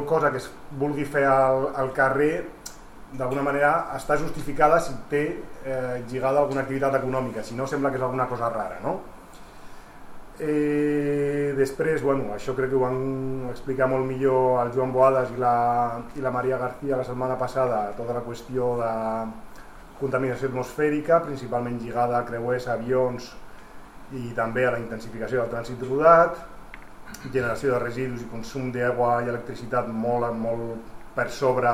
cosa que es vulgui fer al carrer d'alguna manera està justificada si té lligada a alguna activitat econòmica, si no sembla que és alguna cosa rara, no? Després, això crec que ho van explicar molt millor el Joan Boades i la Maria García la setmana passada, tota la qüestió de contaminació atmosfèrica, principalment lligada a creuers, avions i també a la intensificació del trànsit rodat, generació de residus i consum d'aigua i electricitat molt per sobre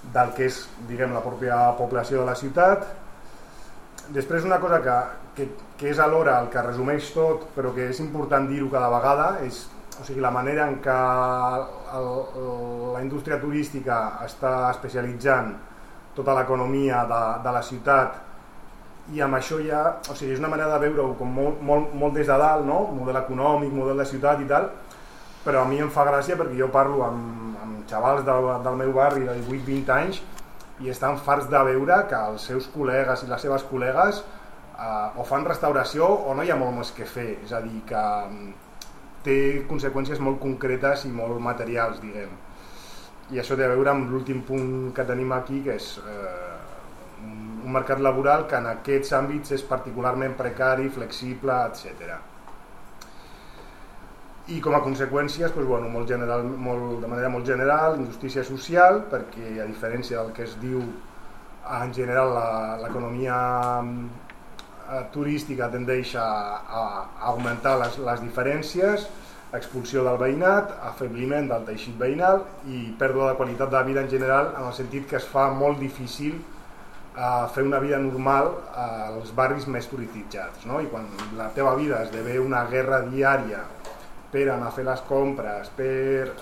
del que és, diguem, la pròpia població de la ciutat. Després una cosa que és alhora el que resumeix tot, però que és important dir-ho cada vegada, és la manera en què la indústria turística està especialitzant tota l'economia de la ciutat, i amb això ja, és una manera de veure-ho com molt des de dalt, no? Model econòmic, model de ciutat i tal, però a mi em fa gràcia perquè jo parlo amb xavals del meu barri de 18-20 anys i estan farts de veure que els seus col·legues i les seves col·legues o fan restauració o no hi ha molt més que fer, és a dir, que té conseqüències molt concretes i molt materials, diguem. I això té a veure amb l'últim punt que tenim aquí, que és un mercat laboral que en aquests àmbits és particularment precari, flexible, etc. i com a conseqüències de manera molt general, injustícia social, perquè a diferència del que es diu en general l'economia turística tendeix a augmentar les diferències, expulsió del veïnat, afebliment del teixit veïnal i pèrdua de qualitat de vida en general, en el sentit que es fa molt difícil fer una vida normal als barris més turistitzats, no? I quan la teva vida esdevé una guerra diària per anar a fer les compres, per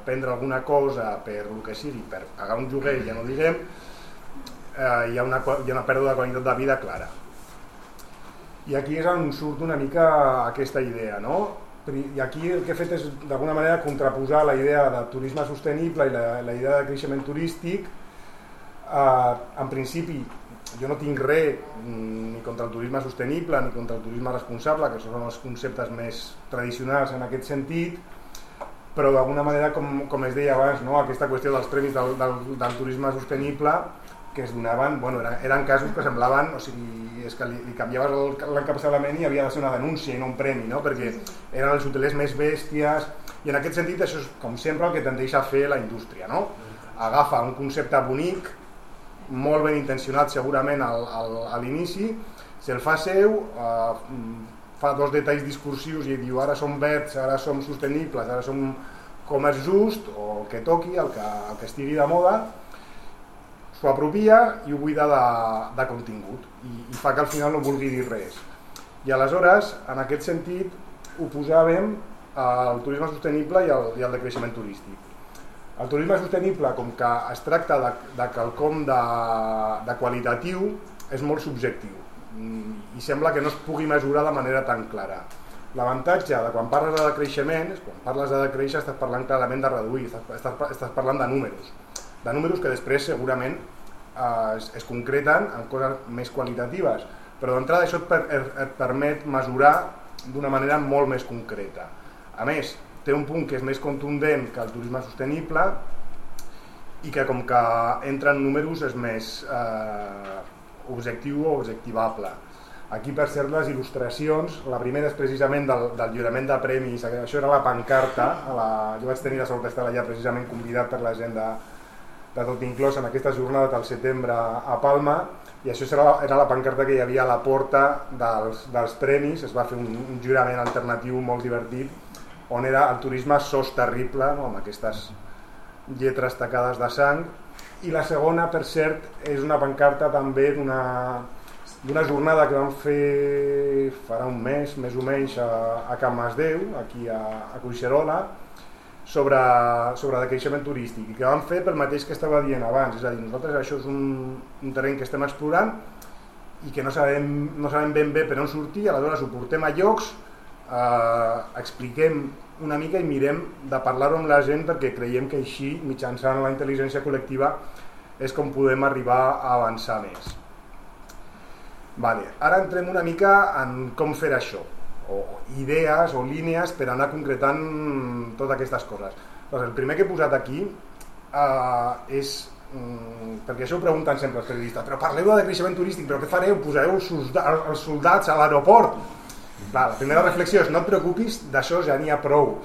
prendre alguna cosa, per el que sigui, per pagar un lloguer, ja no diguem, hi ha una pèrdua de qualitat de vida clara. I aquí és on surt una mica aquesta idea, no? I aquí el que he fet és d'alguna manera contraposar la idea de turisme sostenible i la idea de creixement turístic. En principi jo no tinc res ni contra el turisme sostenible ni contra el turisme responsable, que són els conceptes més tradicionals en aquest sentit, però d'alguna manera, com es deia abans, no? Aquesta qüestió dels premis del turisme sostenible que es donaven, eren casos que semblaven, o sigui, és que li canviaves l'encapçalament i havia de ser una denúncia i no un premi, no? Perquè eren els hotelers més bèsties, i en aquest sentit això és, com sempre, el que tendeix a fer la indústria, no? Agafa un concepte bonic, molt ben intencionat segurament a l'inici, se'l fa seu, fa dos detalls discursius i diu ara som verds, ara som sostenibles, ara som comerç just, o el que toqui, el que estigui de moda, s'ho apropia i ho buida de contingut i fa que al final no vulgui dir res. I aleshores, en aquest sentit, oposàvem el turisme sostenible i el de creixement turístic. El turisme sostenible, com que es tracta de quelcom de qualitatiu, és molt subjectiu i sembla que no es pugui mesurar de manera tan clara. L'avantatge de quan parles de decreixement és quan parles de decréixer estàs parlant clarament de reduir, estàs parlant de números que després segurament es concreten en coses més qualitatives, però d'entrada això et permet mesurar d'una manera molt més concreta. A més, té un punt que és més contundent que el turisme sostenible i que com que entra en números és més objectiu o objectivable. Aquí, per cert, les il·lustracions, la primera és precisament del lliurament de premis, això era la pancarta, jo vaig tenir la sort d'estar allà precisament convidat per la gent de Tot Inclòs en aquesta jornada del setembre a Palma, i això era la pancarta que hi havia a la porta dels premis. Es va fer un jurament alternatiu molt divertit, on era el turisme sos terrible, no? Amb aquestes lletres tacades de sang. I la segona, per cert, és una pancarta també d'una jornada que vam fer farà un mes, més o menys, a Can Masdeu, aquí a Collserola, sobre decreixement turístic, i que vam fer pel mateix que estava dient abans, és a dir, nosaltres això és un terreny que estem explorant i que no sabem ben bé per on sortir, aleshores ho portem a llocs, expliquem una mica i mirem de parlar-ho amb la gent, perquè creiem que així, mitjançant la intel·ligència col·lectiva, és com podem arribar a avançar més. Ara entrem una mica en com fer això, o idees o línies per anar concretant totes aquestes coses. El primer que he posat aquí és, perquè això ho pregunten sempre els periodistes, però parleu de decreixement turístic, però què fareu? Posareu els soldats a l'aeroport? La primera reflexió és no et preocupis, d'això ja n'hi ha prou,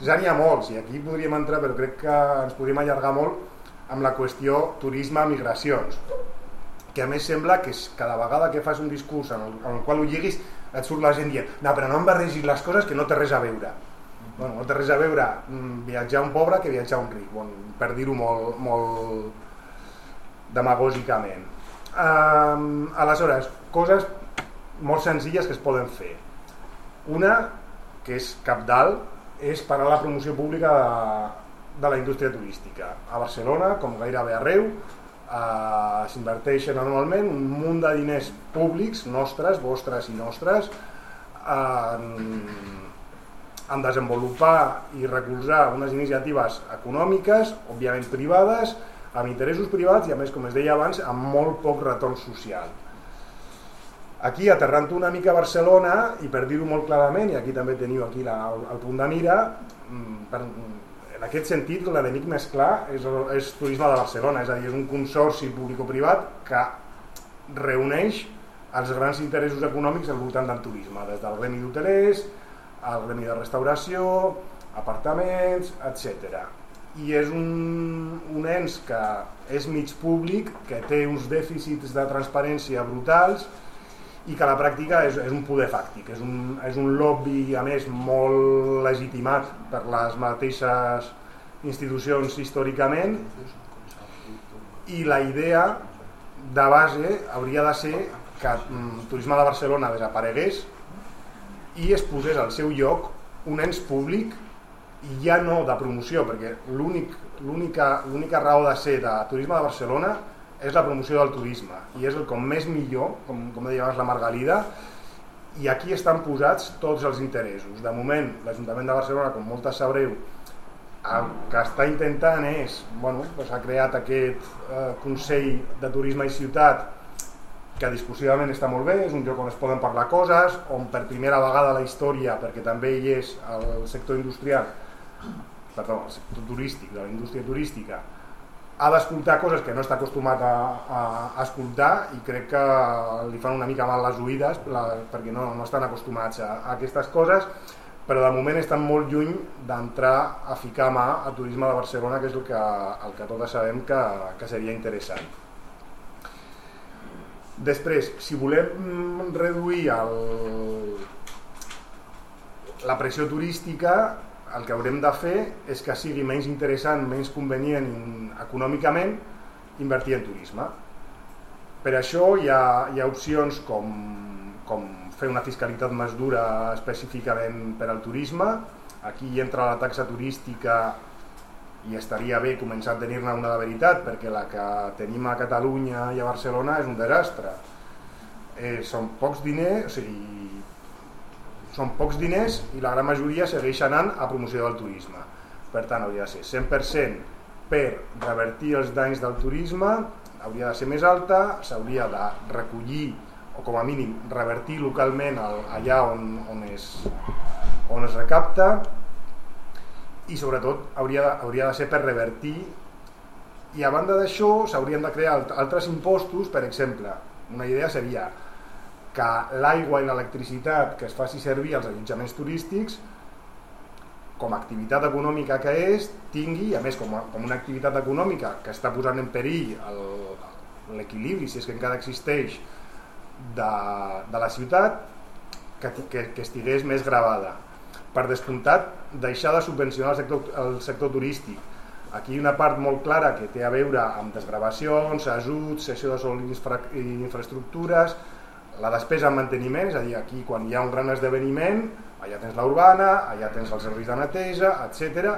ja n'hi ha molts, i aquí podríem entrar, però crec que ens podríem allargar molt amb la qüestió turisme-migracions, que a més sembla que cada vegada que fas un discurs en el qual ho lliguis et surt la gent dient, no, però no em barregis les coses que no té res a veure. No té res a veure viatjar un pobre que viatjar un ric, per dir-ho molt demagògicament. Aleshores, coses molt senzilles que es poden fer. Una, que és cabdal, és parar la promoció pública de la indústria turística. A Barcelona, com gairebé arreu, s'inverteixen anualment un munt de diners públics, nostres, vostres i nostres, en desenvolupar i recolzar unes iniciatives econòmiques, òbviament privades, amb interessos privats i, a més, com es deia abans, amb molt poc retorn social. Aquí, aterrant una mica a Barcelona, i per dir-ho molt clarament, i aquí també teniu aquí el punt de mira, en aquest sentit, l'enemic més clar és Turisme de Barcelona, és a dir, és un consorci público-privat que reuneix els grans interessos econòmics al voltant del turisme, des del gremi d'hotelers, al gremi de restauració, apartaments, etc. I és un ens que és mig públic, que té uns dèficits de transparència brutals i que a la pràctica és un poder fàctic, és un lobby, a més, molt legitimat per les mateixes institucions històricament, i la idea de base hauria de ser que el turisme de Barcelona desaparegués i es posés al seu lloc un ens públic, i ja no de promoció, perquè l'única raó de ser de turisme de Barcelona és la promoció del turisme, i és el com més millor, com deia abans la Margalida, i aquí estan posats tots els interessos. De moment, l'Ajuntament de Barcelona, com moltes sabreu, el que està intentant és, ha creat aquest Consell de Turisme i Ciutat, que discursivament està molt bé, és un lloc on es poden parlar coses, on per primera vegada a la història, perquè també hi és el sector industrial, el sector turístic, de la indústria turística, ha d'escoltar coses que no està acostumat a escoltar, i crec que li fan una mica mal les oïdes perquè no estan acostumats a aquestes coses, però de moment estan molt lluny d'entrar a ficar mà a turisme de Barcelona, que és el que totes sabem que seria interessant. Després, si volem reduir la pressió turística, el que haurem de fer és que sigui menys interessant, menys convenient econòmicament invertir en turisme. Per això hi ha opcions com fer una fiscalitat més dura específicament per al turisme. Aquí entra la taxa turística i estaria bé començar a tenir-ne una de veritat, perquè la que tenim a Catalunya i a Barcelona és un desastre. Són pocs diners i la gran majoria segueix anant a promoció del turisme. Per tant, hauria de ser 100% per revertir els danys del turisme, hauria de ser més alta, s'hauria de recollir o com a mínim revertir localment allà on es recapta, i sobretot hauria de ser per revertir, i a banda d'això s'haurien de crear altres impostos. Per exemple, una idea seria que l'aigua i l'electricitat que es faci servir als allotjaments turístics, com a activitat econòmica que és, tingui, a més com una activitat econòmica que està posant en perill l'equilibri, si és que encara existeix, de la ciutat, que estigués més gravada. Per descomptat, deixar de subvencionar el sector turístic. Aquí hi ha una part molt clara que té a veure amb desgravacions, ajuts, cessió de sòl i infraestructures, la despesa en manteniment, és a dir, aquí quan hi ha un gran esdeveniment, allà tens la urbana, allà tens els serveis de neteja, etc.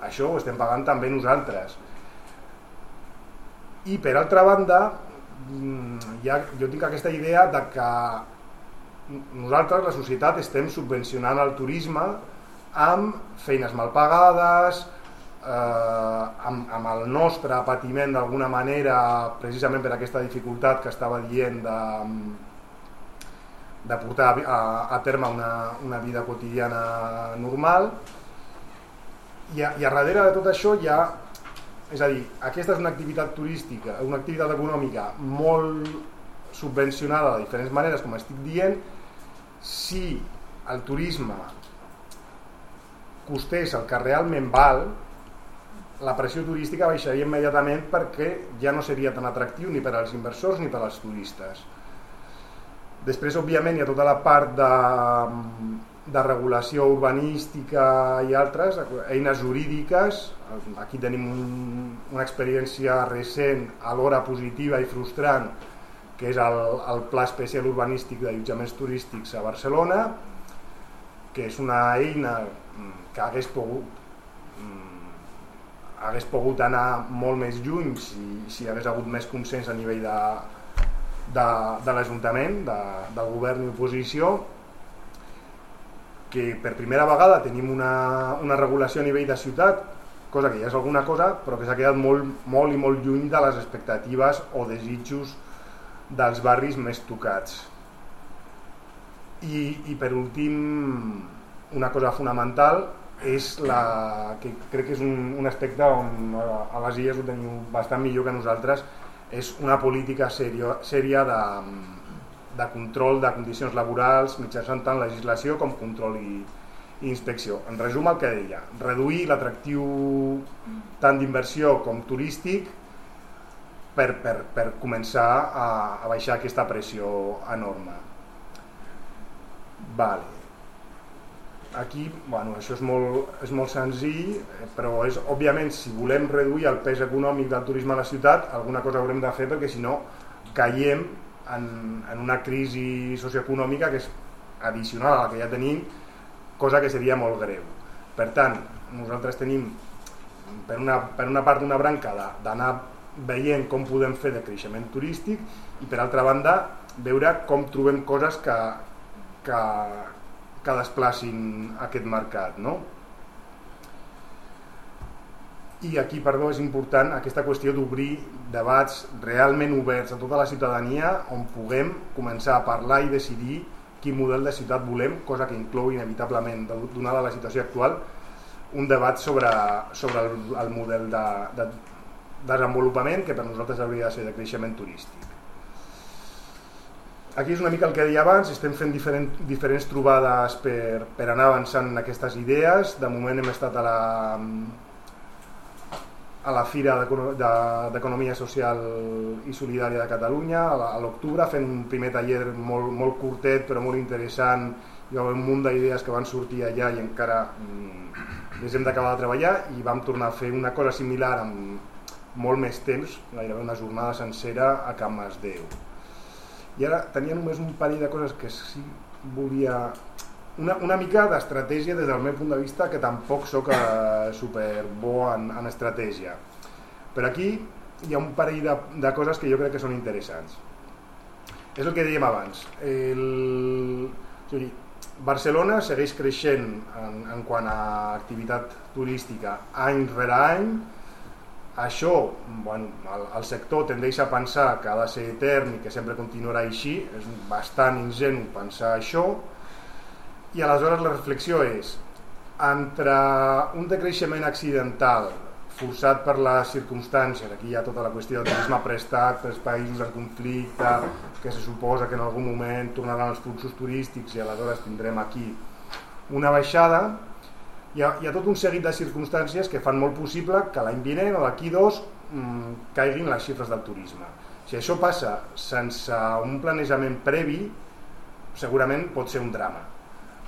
Això ho estem pagant també nosaltres. I per altra banda, jo tinc aquesta idea de que nosaltres, la societat, estem subvencionant el turisme amb feines mal pagades, amb el nostre patiment d'alguna manera, precisament per aquesta dificultat que estava dient de portar a terme una vida quotidiana normal, i a darrere de tot això hi ha, és a dir, aquesta és una activitat turística, una activitat econòmica molt subvencionada de diferents maneres, com estic dient. Si el turisme costés el que realment val, la pressió turística baixaria immediatament, perquè ja no seria tan atractiu ni per als inversors ni per als turistes. Després, òbviament, hi ha tota la part de regulació urbanística i altres, eines jurídiques. Aquí tenim una experiència recent, alhora positiva i frustrant, que és el Pla Especial Urbanístic d'Allotjaments Turístics a Barcelona, que és una eina que hagués pogut anar molt més lluny si hagués hagut més consens a nivell de l'Ajuntament, del govern i oposició, que per primera vegada tenim una regulació a nivell de ciutat, cosa que ja és alguna cosa, però que s'ha quedat molt i molt lluny de les expectatives o desitjos dels barris més tocats. I per últim, una cosa fonamental és que crec que és un aspecte on a les Illes ho teniu bastant millor que nosaltres, és una política sèria de control de condicions laborals mitjançant tant legislació com control i inspecció. En resum, el que deia, reduir l'atractiu tant d'inversió com turístic per començar a baixar aquesta pressió enorme. Vale. Aquí, bueno, això és molt senzill, però és, òbviament, si volem reduir el pes econòmic del turisme a la ciutat, alguna cosa haurem de fer, perquè si no caiem en una crisi socioeconòmica que és addicional a la que ja tenim, cosa que seria molt greu. Per tant, nosaltres tenim per una part una branca d'anar veient com podem fer de creixement turístic i per altra banda veure com trobem coses que desplacin aquest mercat, no? I aquí, perdó, és important aquesta qüestió d'obrir debats realment oberts a tota la ciutadania on puguem començar a parlar i decidir quin model de ciutat volem, cosa que inclou inevitablement, donada la situació actual, un debat sobre el model de desenvolupament que per nosaltres hauria de ser de creixement turístic. Aquí és una mica el que deia abans, estem fent diferents trobades per anar avançant en aquestes idees. De moment hem estat a la Fira d'Economia Social i Solidària de Catalunya a l'octubre, fent un primer taller molt curtet però molt interessant. Hi va haver un munt d'idees que van sortir allà i encara les hem d'acabar de treballar, i vam tornar a fer una cosa similar amb molt més temps, gairebé una jornada sencera a Can Masdeu. I ara tenia només un parell de coses que sí volia... Una mica d'estratègia des del meu punt de vista, que tampoc soc super bo en estratègia. Però aquí hi ha un parell de coses que jo crec que són interessants. És el que dèiem abans. Barcelona segueix creixent en quant a activitat turística any rere any. Això, bueno, el sector tendeix a pensar que ha de ser etern i que sempre continuarà així, és bastant ingenu pensar això, i aleshores la reflexió és, entre un decreixement accidental forçat per les circumstàncies, aquí hi ha tota la qüestió del turisme prestat pels països en conflicte, que se suposa que en algun moment tornaran els fluxos turístics i aleshores tindrem aquí una baixada. Hi ha tot un seguit de circumstàncies que fan molt possible que l'any vinent o d'aquí 2 caiguin les xifres del turisme. Si això passa sense un planejament previ, segurament pot ser un drama.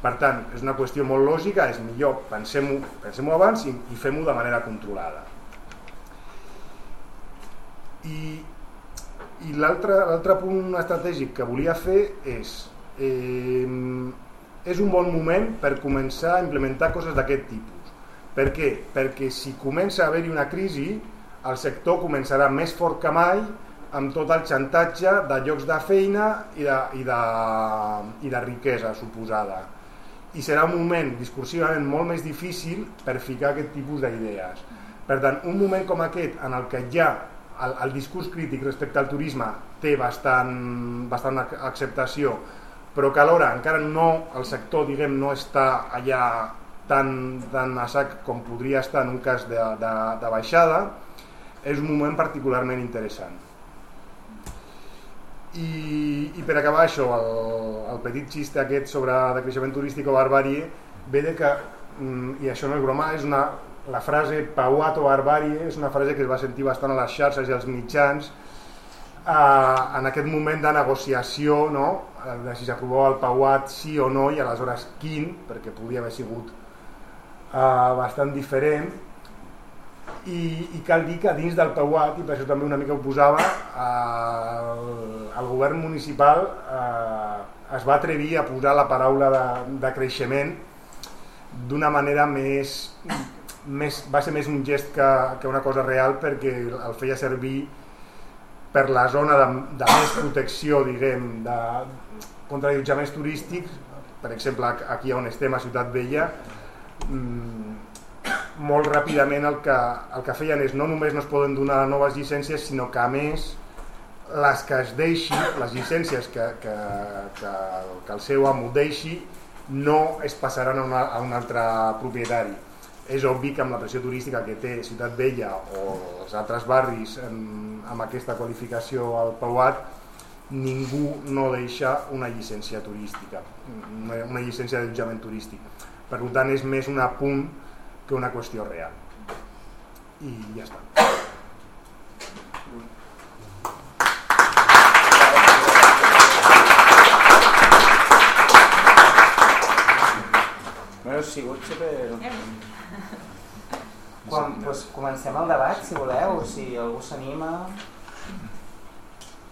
Per tant, és una qüestió molt lògica, és millor pensem-ho abans i fem-ho de manera controlada. I l'altre punt estratègic que volia fer és un bon moment per començar a implementar coses d'aquest tipus. Per què? Perquè si comença a haver-hi una crisi, el sector començarà més fort que mai amb tot el xantatge de llocs de feina i de riquesa suposada. I serà un moment discursivament molt més difícil per ficar aquest tipus d'idees. Per tant, un moment com aquest en el que ja el discurs crític respecte al turisme té bastant acceptació, però que alhora encara el sector no està allà tan a sac com podria estar en un cas de baixada, és un moment particularment interessant. I per acabar això, el petit xiste aquest sobre decreixement turístic o barbàrie ve de que, i això no és broma, la frase pauat o barbàrie és una frase que es va sentir bastant a les xarxes i als mitjans en aquest moment de negociació, no? De si s'aprovava el pauat sí o no, i aleshores quin, perquè podia haver sigut bastant diferent. I cal dir que dins del pauat, i per això també una mica ho posava, el govern municipal es va atrevir a posar la paraula de creixement d'una manera va ser més un gest que una cosa real, perquè el feia servir per la zona de més protecció, diguem, contra allotjaments turístics. Per exemple, aquí on estem, a Ciutat Vella, molt ràpidament el que feien és no només no es poden donar noves llicències, sinó que a més les que es deixi, les llicències que el seu amo deixi, no es passaran a un altre propietari. És obvi que amb la pressió turística que té Ciutat Vella o els altres barris amb aquesta qualificació al pauat, ningú no deixa una llicència turística, una llicència d'allotjament turístic. Per tant, és més un apunt que una qüestió real. I ja està. Bueno, ha sigut super... Doncs comencem el debat, si voleu, si algú s'anima.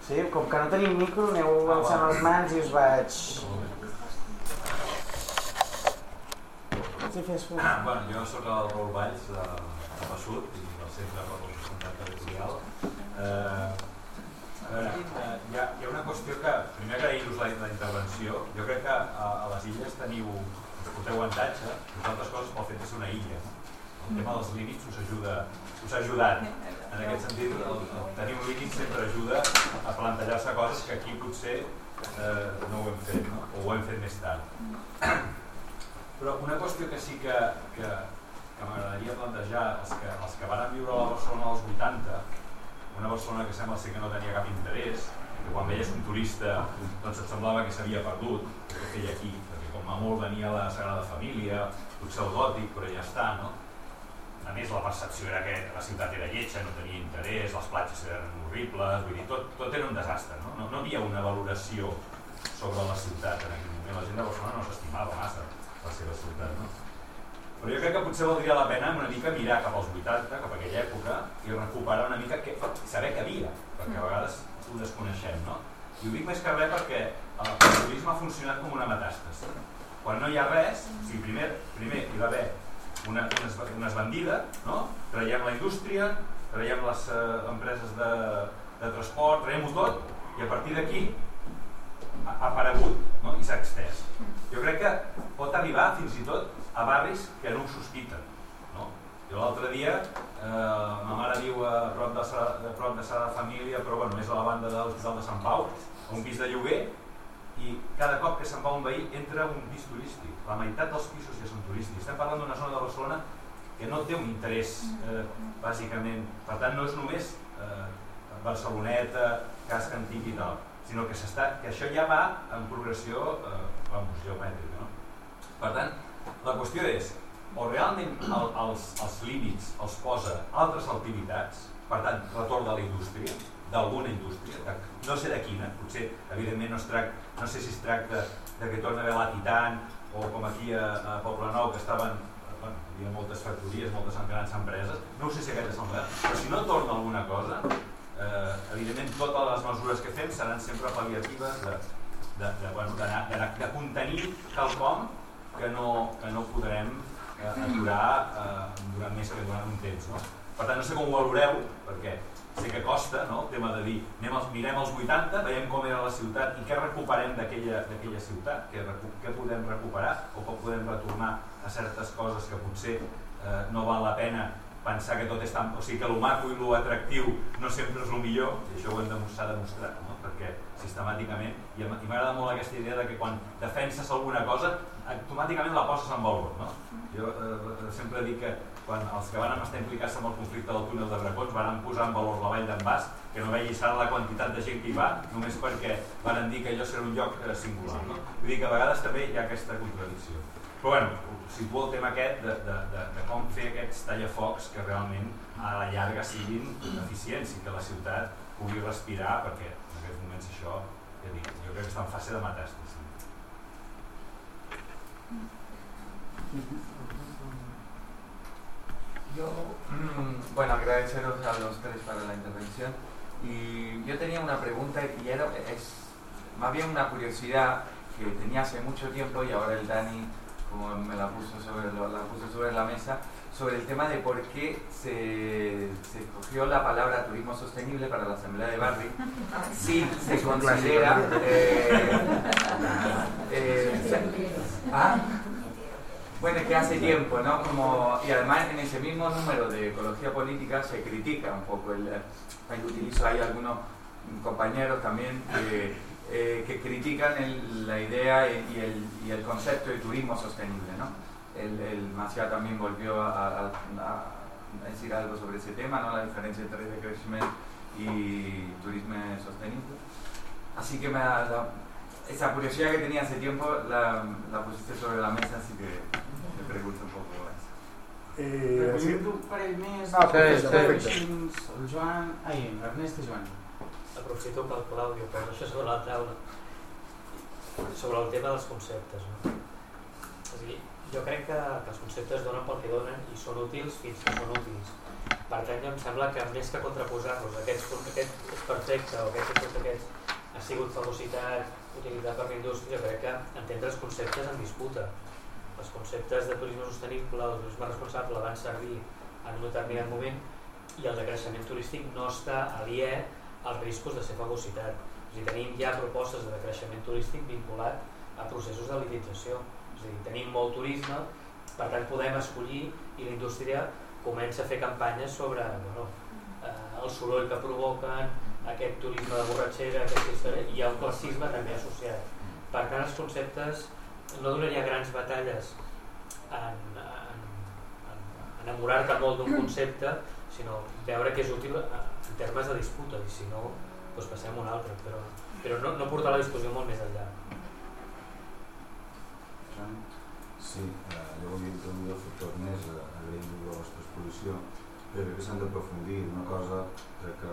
Sí, com que no tenim micro, aneu alçant les mans i us vaig... Sí, fes. Bueno, jo soc el Raül Valls de Passut i del Centre per la Sostenibilitat Territorial. Hi ha una qüestió que, primer agrair-vos la intervenció. Jo crec que a les illes porteu avantatge, entre altres coses pel fet de ser una illa. El tema dels límits us ha ajudat. En aquest sentit, tenir un límit sempre ajuda a plantejar-se coses que aquí potser no ho hem fet, no? O ho hem fet més tard. Però una qüestió que sí que m'agradaria plantejar és que els que van viure a la Barcelona dels 80, una Barcelona que sembla ser que no tenia cap interès, que quan veies un turista doncs et semblava que s'havia perdut, que feia aquí, perquè com a molt venia la Sagrada Família, potser el gòtic, però ja està, no? A més, la percepció era que la ciutat era lletja, no tenia interès, les platges eren horribles, vull dir, tot era un desastre, no? No havia una valoració sobre la ciutat en aquell moment. La gent de Barcelona no s'estimava massa la seva ciutat, no? Però jo crec que potser valdria la pena una mica mirar cap als 80, cap a aquella època, i recuperar una mica saber què havia, perquè a vegades ho desconeixem, no? I ho dic més que res perquè el turisme ha funcionat com una metàstasi. Quan no hi ha res, primer hi va haver una esbandida, no? Traiem la indústria, traiem les empreses de transport, traiem-ho tot, i a partir d'aquí ha aparegut, no? I s'ha extès. Jo crec que pot arribar fins i tot a barris que no ho sospiten, no? Jo l'altre dia, ma mare viu a prop de Sagrada Família, però bueno, més a la banda de l'Hospital de Sant Pau, a un pis de lloguer, i cada cop que se'n va un veí entra un pis turístic. La meitat dels pisos ja són turístics. Estem parlant d'una zona de Barcelona que no té un interès, bàsicament. Per tant, no és només Barceloneta, casc antic i tal, sinó que això ja va en progressió geomètrica, no? Per tant, la qüestió és, o realment els límits els posa altres activitats, per tant, retorn de la indústria, d'alguna indústria, no sé de quina, potser, evidentment, no sé si es tracta de que torna a haver la Titan, o com aquí a Poblenou, que estaven, hi havia moltes factories, moltes grans empreses, no ho sé si aquest és el model, però si no torna alguna cosa, evidentment totes les mesures que fem seran sempre pal·liatives de contenir quelcom que no podrem aturar durant més que durant un temps, no? Per tant, no sé com ho valoreu, perquè sé que costa, no? El tema de dir, mirem els 80, veiem com era la ciutat i què recuperem d'aquella ciutat, què podem recuperar o com podem retornar a certes coses que potser no val la pena pensar que tot és tan... O sigui, que el maco i l'atractiu no sempre és el millor, i això ho hem demostrat, no? Perquè sistemàticament, i m'agrada molt aquesta idea de que quan defenses alguna cosa, automàticament la poses en valor, no? Jo sempre dic que quan els que van estar implicats en el conflicte del túnel de Bracons van posar en valor la vall d'en Bas, que no veia la quantitat de gent que hi va, només perquè van dir que allò serà un lloc singular, no? Vull dir que a vegades també hi ha aquesta contradicció. Però bueno, situo el tema aquest de com fer aquests tallafocs que realment a la llarga siguin eficients i que la ciutat pugui respirar, perquè en aquests moments això, ja dic, jo crec que està en fase de metàstasi. Yo, bueno, agradeceros a los tres para la intervención. Y yo tenía una pregunta y es más bien una curiosidad que tenía hace mucho tiempo y ahora el Dani como me la puso sobre la mesa, sobre el tema de por qué se escogió la palabra turismo sostenible para la Asamblea de Barri si se considera bueno, es que hace tiempo, ¿no? Y además en ese mismo número de ecología política se critica un poco ahí utilizo ahí algunos compañeros también que critican la idea y el concepto de turismo sostenible, ¿no? El Macià también volvió a decir algo sobre ese tema, ¿no? La diferencia entre decrecimiento y turismo sostenible. Así que esa curiosidad que tenía hace tiempo la pusiste sobre la mesa, así que Recollim un parell més. Perfecte. El Joan... Ernest i Joan. Aprofito que el Claudio posa això sobre la taula. Sobre el tema dels conceptes. No? És a dir, jo crec que els conceptes donen pel que donen i són útils fins que són útils. Per tant, jo em sembla que més que contraposar-los, aquest és perfecte o aquest ha sigut fagocitat, utilitzat per la indústria, jo crec que entendre els conceptes en disputa. Els conceptes de turisme sostenible o de turisme responsable van servir en un determinat moment i el decreixement turístic no està aliè als riscos de ser fagocitat. És a dir, tenim ja propostes de decreixement turístic vinculat a processos de elitització. És a dir, tenim molt turisme, per tant podem escollir i la indústria comença a fer campanyes sobre el soroll que provoquen, aquest turisme de borratxera, i hi ha un classisme també associat. Per tant, els conceptes no donaria grans batalles en enamorar-te molt d'un concepte, sinó veure que és útil en termes de disputa, i si no, doncs passem a un altre, però no portar la discussió molt més enllà. Sí, jo volia introduir el factor més, agraïm la vostra exposició, però crec que s'han d'aprofundir una cosa que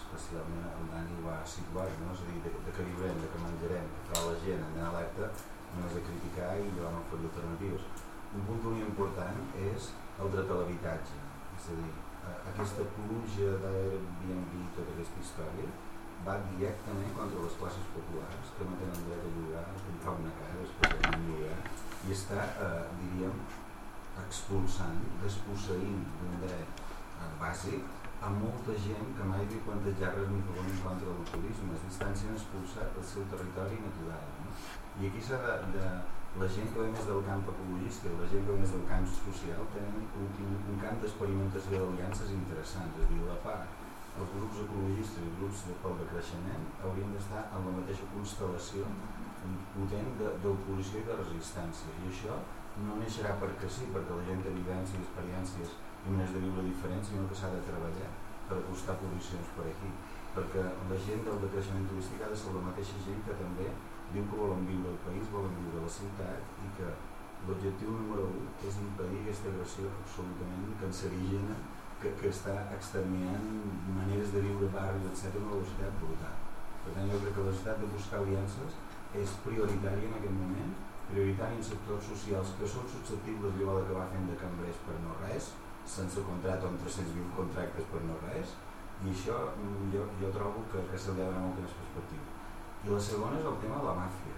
especialment el Dani va situar, no? És a dir, de que viurem, de que menjarem, que farà la gent en alerta, no és de criticar i de no oferir alternatives. Un punt molt important és el dret a l'habitatge, és a dir, aquesta pluja d'Airbnb i tota aquesta història va directament contra les classes populars que no tenen dret a llogar, a comprar una casa, especialment llogar, i està, diríem, expulsant, desposseint d'un dret bàsic a molta gent que mai havia plantejat res ni favor en contra del turisme, es estan sent expulsats del seu territori natural. No? I aquí s'ha la gent que ve més del camp ecologista i la gent que ve més del camp social tenen un camp d'experimentació d'aliances interessants, és a dir, la part, els grups ecologistes i els grups pel decreixement haurien d'estar en la mateixa constel·lació potent d'oposició i de resistència, i això no neixerà perquè sí, perquè la gent té vivències, experiències i maneres de viure diferents, sinó que s'ha de treballar per acostar posicions per aquí, perquè la gent del decreixement turístic ha de ser la mateixa gent que també diu que volen viure al país, volen viure a la ciutat, i que l'objectiu número 1 és impedir aquesta agressió absolutament cancerígena que està exterminant maneres de viure barris, etc., a una velocitat brutal. Per tant, jo crec que la necessitat de buscar aliances és prioritària en aquest moment, prioritària en sectors socials que són susceptibles d'allò d'acabar fent de cambrers per no res, sense contracte o amb 320 contractes per no res, i això jo trobo que se li ha de donar molta més perspectiva. I la segona és el tema de la màfia.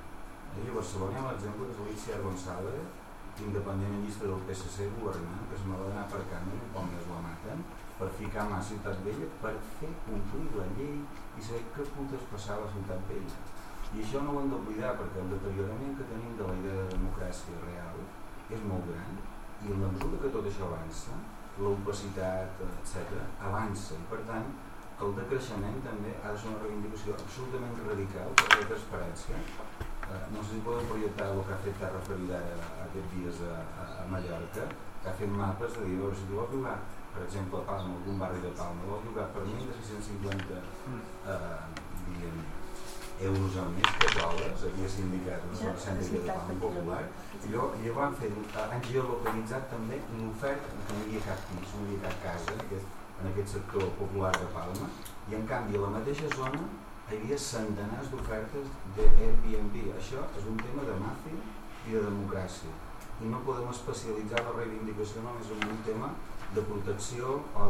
A Barcelona hi ha l'exemple que és l'Itziar González, independent llista del PSC governant, que es me va anar per camí, com més la maten, per ficar mà a Ciutat Vella, per fer complir la llei i saber què putes passava a Ciutat Vella. I això no ho hem d'oblidar, perquè el deteriorament que tenim de la idea de democràcia real és molt gran, i en la mesura que tot això avança, l'opacitat, etc., avança, i per tant el decreixement també ha de ser una reivindicació absolutament radical per la transparència. No sé si podem projectar el que ha fet Terra Ferida aquests dies a Mallorca, que ha fet mapes de dir, si tu vols llogar, per exemple, a Palma, algun barri de Palma, vols llogar per menys de 650 euros al mes, que dòlars, havia sindicat una zona cèntrica de Palma Popular, i van fer, han geolocalitzat també l'oferta, que no hi havia cap pis, no hi havia cap casa en aquest sector popular de Palma, i en canvi a la mateixa zona hi havia centenars d'ofertes d'Airbnb. Això és un tema de màfia i de democràcia, i no podem especialitzar la reivindicació només en un tema de protecció o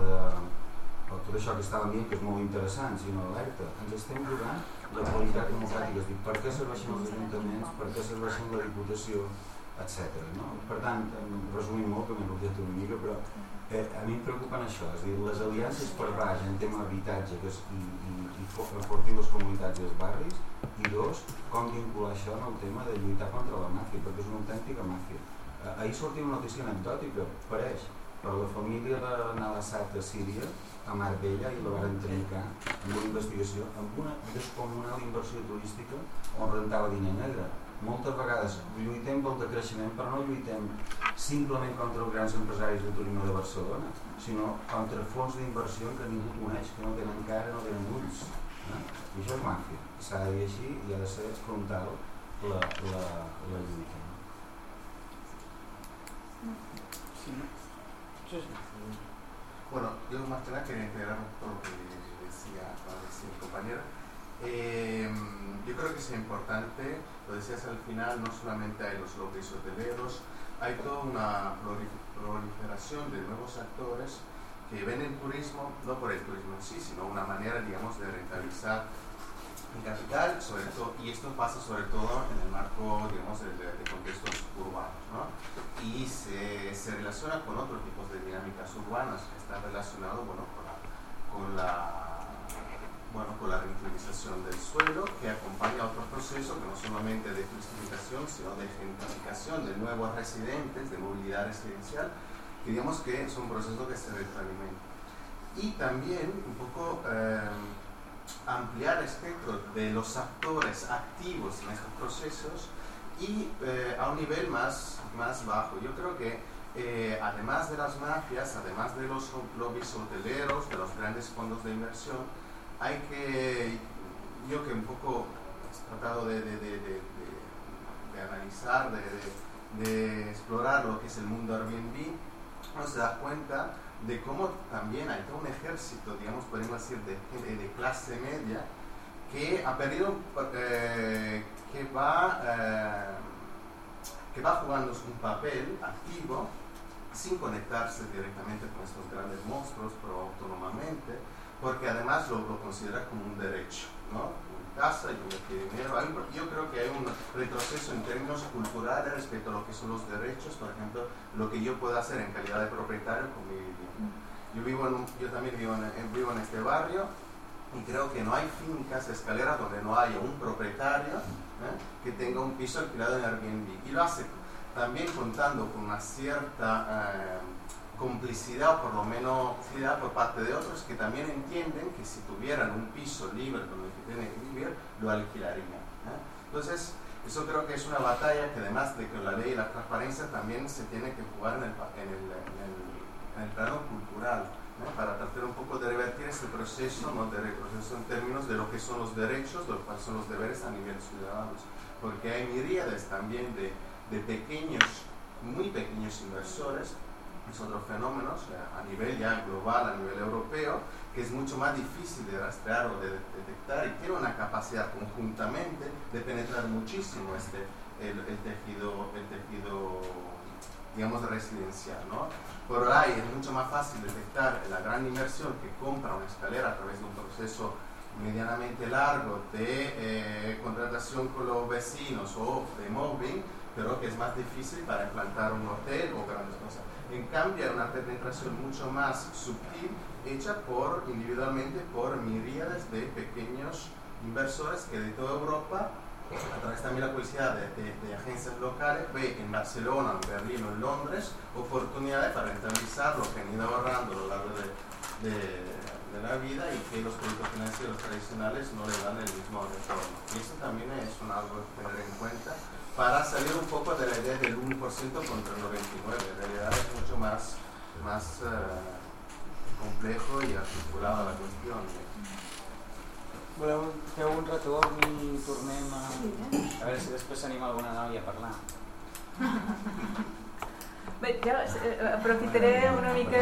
tot això que estàvem dient, que és molt interessant, sinó alerta. Ens estem jugant la qualitat democràtica, és dir, per què serveixen els ajuntaments, per què serveixen la Diputació, etc. No? Per tant, resumint molt, que m'he rotllat una mica, però a mi em preocupen això, és a dir, les aliances per baix en tema d'habitatge i enfortir les comunitats i els barris, i dos, com vincular això en el tema de lluitar contra la màfia, perquè és una autèntica màfia. Ahir sortia una notícia anecdòtica, pareix, per la família de Nalassat a Síria, a Marbella, i la van trencar amb una investigació, amb una descomunal inversió turística on rentava diner negre. Moltes vegades lluitem pel decreixement, però no lluitem simplement contra els grans empresaris de turisme de Barcelona, sinó contra fons d'inversió que ningú coneix, que no tenen cara, no tenen ulls. I això és màfia. S'ha de dir així i ha de ser frontal la lluita. Sí, Sí. Bueno, yo más que nada quería integrar todo lo que decía el compañero. Yo creo que es importante, lo decías al final, no solamente hay los lobbies hoteleros, hay toda una proliferación de nuevos actores que ven el turismo, no por el turismo en sí, sino una manera, digamos, de rentabilizar el capital, sobre todo, y esto pasa sobre todo en el marco, digamos, de contextos urbanos, ¿no? Y se relaciona con otros tipos de dinámicas urbanas que están relacionados, bueno, con la reutilización del suelo, que acompaña a otros procesos que no solamente de turistificación, sino de gentrificación de nuevos residentes, de movilidad residencial, que digamos que es un proceso que se retroalimenta. Y también un poco ampliar el espectro de los actores activos en estos procesos y a un nivel más bajo. Yo creo que además de las mafias, además de los lobbies hoteleros, de los grandes fondos de inversión, hay que, yo que un poco he tratado de analizar, de explorar lo que es el mundo Airbnb, uno se da cuenta de cómo también hay todo un ejército, digamos, podemos decir, de clase media que ha perdido, que va jugando un papel activo sin conectarse directamente con estos grandes monstruos, pero autónomamente, porque además lo considera como un derecho, ¿no? Mi casa, yo me quiero dinero. Yo creo que hay un retroceso en términos culturales respecto a lo que son los derechos, por ejemplo, lo que yo puedo hacer en calidad de propietario con mi vivienda. Yo también vivo en este barrio y creo que no hay fincas, escaleras donde no haya un propietario que tenga un piso alquilado en Airbnb. Y lo hace también contando con una cierta complicidad, o por lo menos por parte de otros que también entienden que si tuvieran un piso libre donde tienen que vivir, lo alquilarían. Entonces, eso creo que es una batalla que además de que la ley y la transparencia también se tiene que jugar en el plano cultural, para tratar un poco de revertir este proceso, ¿no? De retroceso en términos de lo que son los derechos, de lo que son los deberes a nivel ciudadanos, porque hay miríades también de pequeños, muy pequeños inversores. Es otro fenómeno a nivel ya global, a nivel europeo, que es mucho más difícil de rastrear o de detectar y tiene una capacidad conjuntamente de penetrar muchísimo el tejido, digamos, residencial, ¿no? Por ahí es mucho más fácil detectar la gran inversión que compra una escalera a través de un proceso medianamente largo de contratación con los vecinos o de mobbing, pero que es más difícil para implantar un hotel o grandes cosas. En cambio, hay una penetración mucho más sutil, hecha individualmente por miríades de pequeños inversores que de toda Europa, a través también de la publicidad de agencias locales, ve en Barcelona, en Berlín o en Londres oportunidades para rentabilizar lo que han ido ahorrando a lo largo de la vida y que los productos financieros tradicionales no le dan el mismo retorno. Y eso también es algo que tener en cuenta para salir un poco de la idea del 1% contra el 99%. En realidad es mucho más complejo y articulado la cuestión. Voleu fer un retorn i tornem a veure si després s'anima alguna noia a parlar. Bé, jo aprofitaré una mica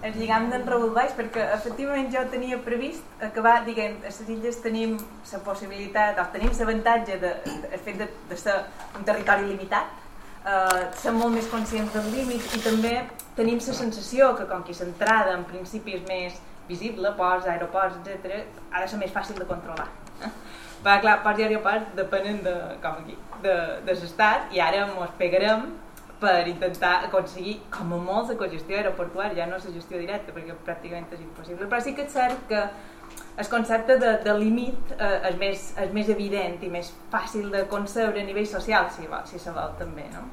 el lligam d'en Raül Baix, perquè efectivament jo tenia previst acabar dient a les illes tenim la possibilitat, o tenim l'avantatge del fet de ser un territori limitat, som molt més conscients del límit i també tenim la sensació que com que l'entrada en principi és més visible, ports, aeroports, etc., ha de ser més fàcil de controlar. Perquè clar, ports i aeroports depenen com aquí, de l'estat i ara ens pegarem per intentar aconseguir com a molt la cogestió aeroportuària, ja no la gestió directa perquè pràcticament és impossible, però sí que és cert que el concepte de límit és més evident i més fàcil de concebre a nivell social, si se vol també, no?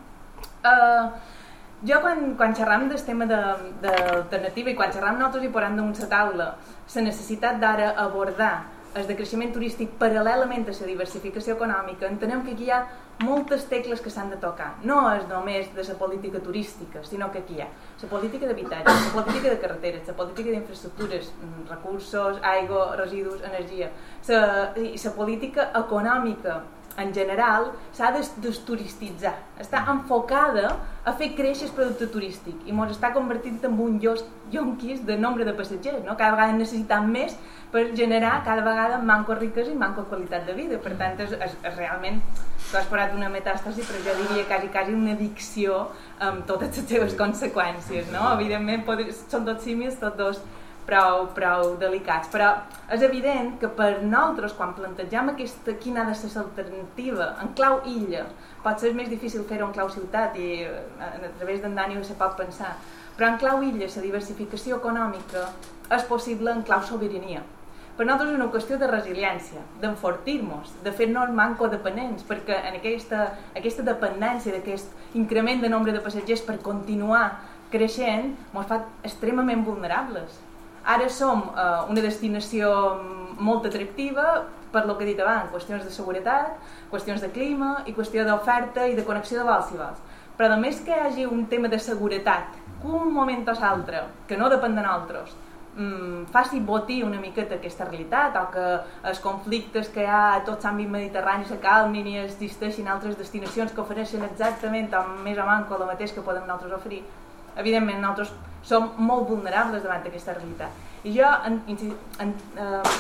Jo quan xerram del tema d'alternativa i quan xerram nosaltres i posem damunt la taula la necessitat d'ara abordar el decreixement turístic paral·lelament a la diversificació econòmica, entenem que aquí hi ha moltes tecles que s'han de tocar. No és només de la política turística, sinó que aquí hi ha la política d'habitatge, la política de carreteres, la política d'infraestructures, recursos, aigua, residus, energia, la política econòmica en general, s'ha de desturistitzar. Està enfocada a fer créixer el producte turístic i ens està convertint en un yonquis de nombre de passatgers. No? Cada vegada necessitem més per generar cada vegada manco riquesa i manco qualitat de vida. Per tant, és realment, tu has parlat d'una metàstasi, però jo diria quasi una addicció amb totes les seves conseqüències. No? Evidentment, són tots símils, tots dos prou delicats, però és evident que per nosaltres, quan plantegem quina ha de ser l'alternativa en clau illa, pot ser més difícil fer-ho en clau ciutat i a través d'en Dani se pot pensar, però en clau illa la diversificació econòmica és possible en clau sobirania. Per nosaltres és una qüestió de resiliència, d'enfortir-nos, de fer-nos manco-dependents, perquè en aquesta dependència d'aquest increment de nombre de passatgers per continuar creixent ens fa extremament vulnerables. Ara som una destinació molt atractiva per lo que he dit abans, qüestions de seguretat, qüestions de clima i qüestió d'oferta i de connexió de vols i vols. Però a més que hi hagi un tema de seguretat, que un moment o l'altre, que no depèn de nosaltres, faci botir una miqueta aquesta realitat, o que els conflictes que hi ha a tot l'àmbit mediterrani se calmin i existeixin altres destinacions que ofereixen exactament o més o manco el mateix que podem nosaltres oferir. Evidentment, nosaltres som molt vulnerables davant d'aquesta realitat. I jo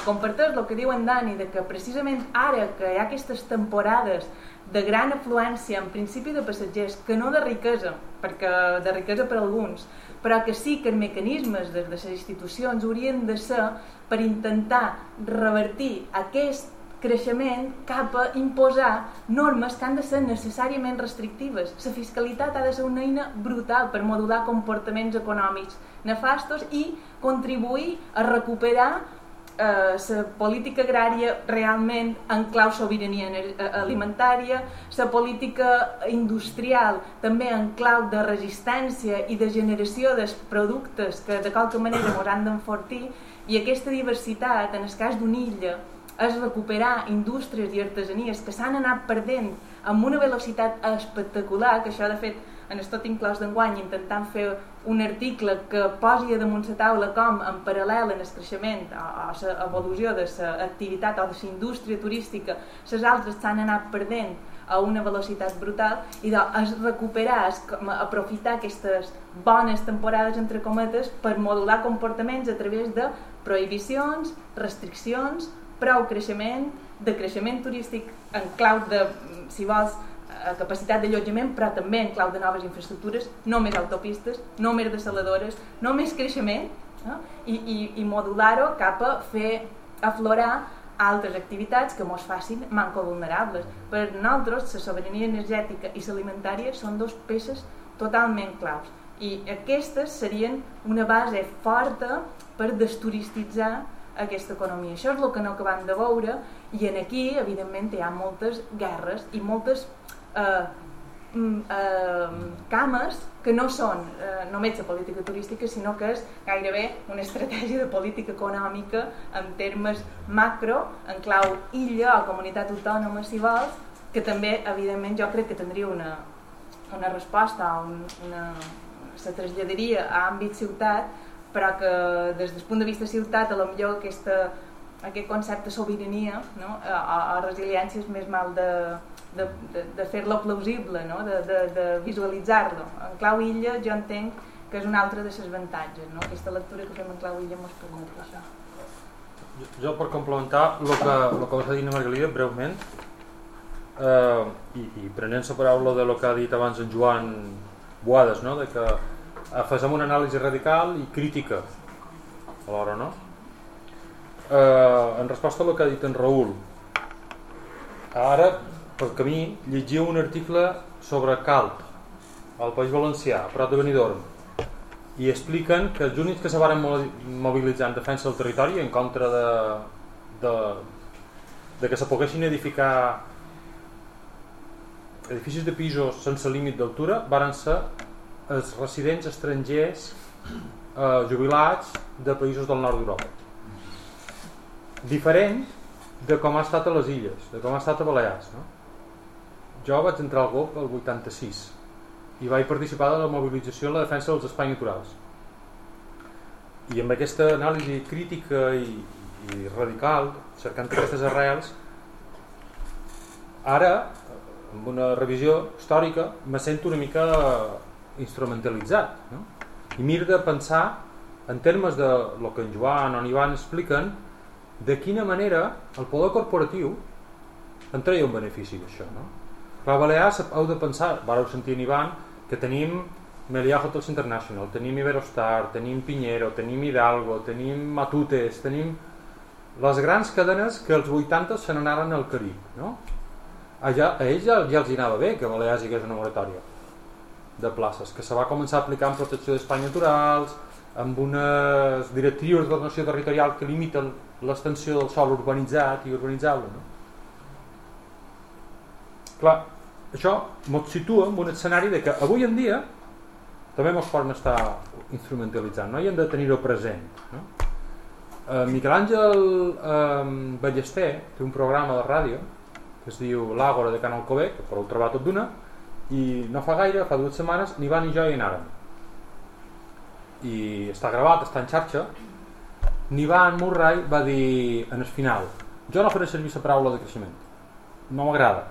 comparteix el que diu en Dani, de que precisament ara que hi ha aquestes temporades de gran afluència, en principi de passatgers, que no de riquesa, perquè de riquesa per alguns, però que sí que els mecanismes de les institucions haurien de ser per intentar revertir aquest creixement cap a imposar normes que han de ser necessàriament restrictives. La fiscalitat ha de ser una eina brutal per modular comportaments econòmics nefastos i contribuir a recuperar la política agrària realment en clau sobirania alimentària, la política industrial també en clau de resistència i de generació dels productes que de qualque manera ens han d'enfortir, i aquesta diversitat, en el cas d'una illa, és recuperar indústries i artesanies que s'han anat perdent amb una velocitat espectacular, que això de fet en el tot inclòs d'enguany intentant fer un article que posi damunt la taula com en paral·lel en el creixement o l'evolució de l'activitat o de la indústria turística, les altres s'han anat perdent a una velocitat brutal, i és recuperar, és aprofitar aquestes bones temporades entre cometes per modular comportaments a través de prohibicions, restriccions, prou creixement, de creixement turístic en clau de, si vols, capacitat d'allotjament, però també en clau de noves infraestructures, no més autopistes, no més desaladores, no més creixement, i modular-ho cap a fer aflorar altres activitats que ens facin manco vulnerables. Per nosaltres, la sobirania energètica i l'alimentària són dues peces totalment claus, i aquestes serien una base forta per desturistitzar aquesta economia. Això és el que no acabem de veure, i en aquí evidentment hi ha moltes guerres i moltes cames que no són només la política turística, sinó que és gairebé una estratègia de política econòmica en termes macro, en clau illa o comunitat autònoma, si vols, que també evidentment jo crec que tindria una resposta, se traslladaria a àmbit ciutat, però que des del punt de vista ciutat potser aquest concepte de sobirania, no? o resiliència és més mal de fer-lo plausible, no? de visualitzar-lo. En clau illa jo entenc que és un altre dels avantatges, no? Aquesta lectura que fem en clau illa ens permet això. Jo per complementar el que vas dir, Margalida, breument, i prenent la paraula de lo que ha dit abans en Joan Boades, no? De que fem una anàlisi radical i crítica alhora, no? En resposta a el que ha dit en Raül, ara pel camí llegia un article sobre Calp al País Valencià, a prop de Benidorm, i expliquen que els únics que se van mobilitzar en defensa del territori en contra de que se poguessin edificar edificis de pisos sense límit d'altura van ser els residents estrangers jubilats de països del nord d'Europa. Diferent de com ha estat a les illes, de com ha estat a Balears, no? Jo vaig entrar al GOP el 86 i vaig participar de la mobilització en la defensa dels espais naturals, i amb aquesta anàlisi crítica i radical, cercant aquestes arrels, Ara, amb una revisió històrica, me sento una mica instrumentalitzat, no? I m'he de pensar en termes de lo que en Joan o en Ivan expliquen, de quina manera el poder corporatiu en treia un benefici d'això, no? Clar, a Balears heu de pensar, vareu sentir en Ivan, que tenim Meliá Hotels International, tenim Iberostar, tenim Piñero, tenim Hidalgo, tenim Matutes, tenim les grans cadenes que als 80 se n'anaren al Carib, no? A ells ja els anava bé que a Balears hi hagués una moratòria de places, que se va començar a aplicar en protecció d'espais naturals, amb unes directrius d'ordenació territorial que limiten l'extensió del sòl urbanitzat i urbanitzable, no? Clar, això ens situa en un escenari de que avui en dia també ens poden estar instrumentalitzant, no? I hem de tenir-ho present, no? Miquel Àngel Ballester té un programa de ràdio que es diu L'Àgora de Can Alcover, que podeu trobar tot d'una, i no fa gaire, fa 2 setmanes, ni Ivan ni jo hi anàrem. I està gravat, està en xarxa. Ivan Murray va dir en el final: jo no faré servir la paraula de creixement, no m'agrada.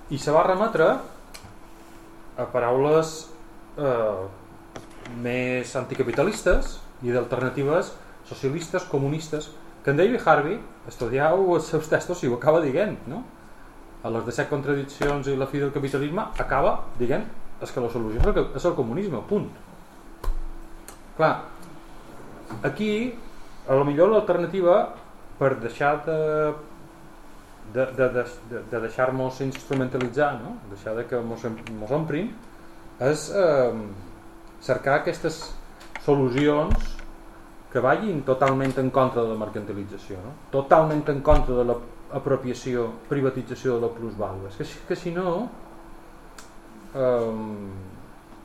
I se va remetre a paraules més anticapitalistes i d'alternatives socialistes, comunistes, que en David Harvey, estudieu els seus textos i ho acaba dient, no? A les 17 contradiccions i la fi del capitalisme acaba dient que la solució és el comunisme, punt. Clar, aquí a lo millor l'alternativa per deixar de deixar-nos instrumentalitzar, no? Deixar de que mos omprin, és cercar aquestes solucions que vagin totalment en contra de la mercantilització, no? Totalment en contra de l'apropiació, privatització de la plusvàlua. És que si no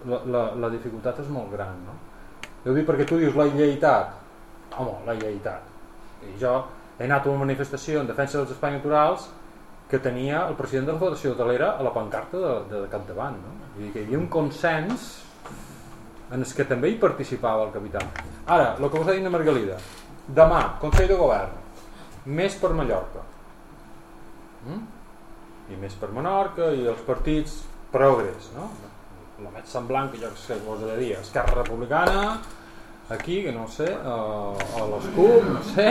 la dificultat és molt gran, no? Jo dic perquè tu dius la lleitat. Home, la lleitat. I jo he anat a una manifestació en defensa dels espais naturals que tenia el president de la Federació Hotelera a la pancarta de capdavant, no? Vull dir que hi havia un consens en el que també hi participava el capital. Ara, el que us ha dit la Margalida, demà, Consell de Govern, més per Mallorca, i més per Menorca, i els partits progres, no? La més semblant que jo que us he de dir, Esquerra Republicana, aquí, que no sé, o l'Escup, no sé,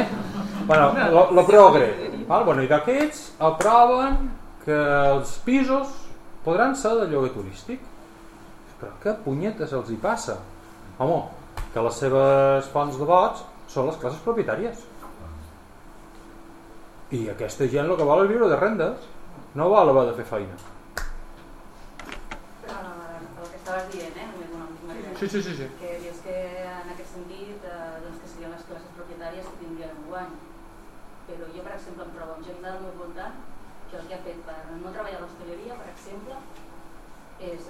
bueno, la progre, bueno, i d'aquests aproven que els pisos podran ser de lloguer turístic. Però què punyetes els hi passa? Home, que les seves fonts de vots són les classes propietàries. I aquesta gent el que vol és viure de rendes, no vol haver de fer feina. Però el que estaves dient, Sí. que dius que en aquest sentit doncs que serien les classes propietàries que tindrien un guany. Però jo, per exemple, em trobo amb gent del meu voltant que el que ha fet per no treballar a l'hostaleria, per exemple, és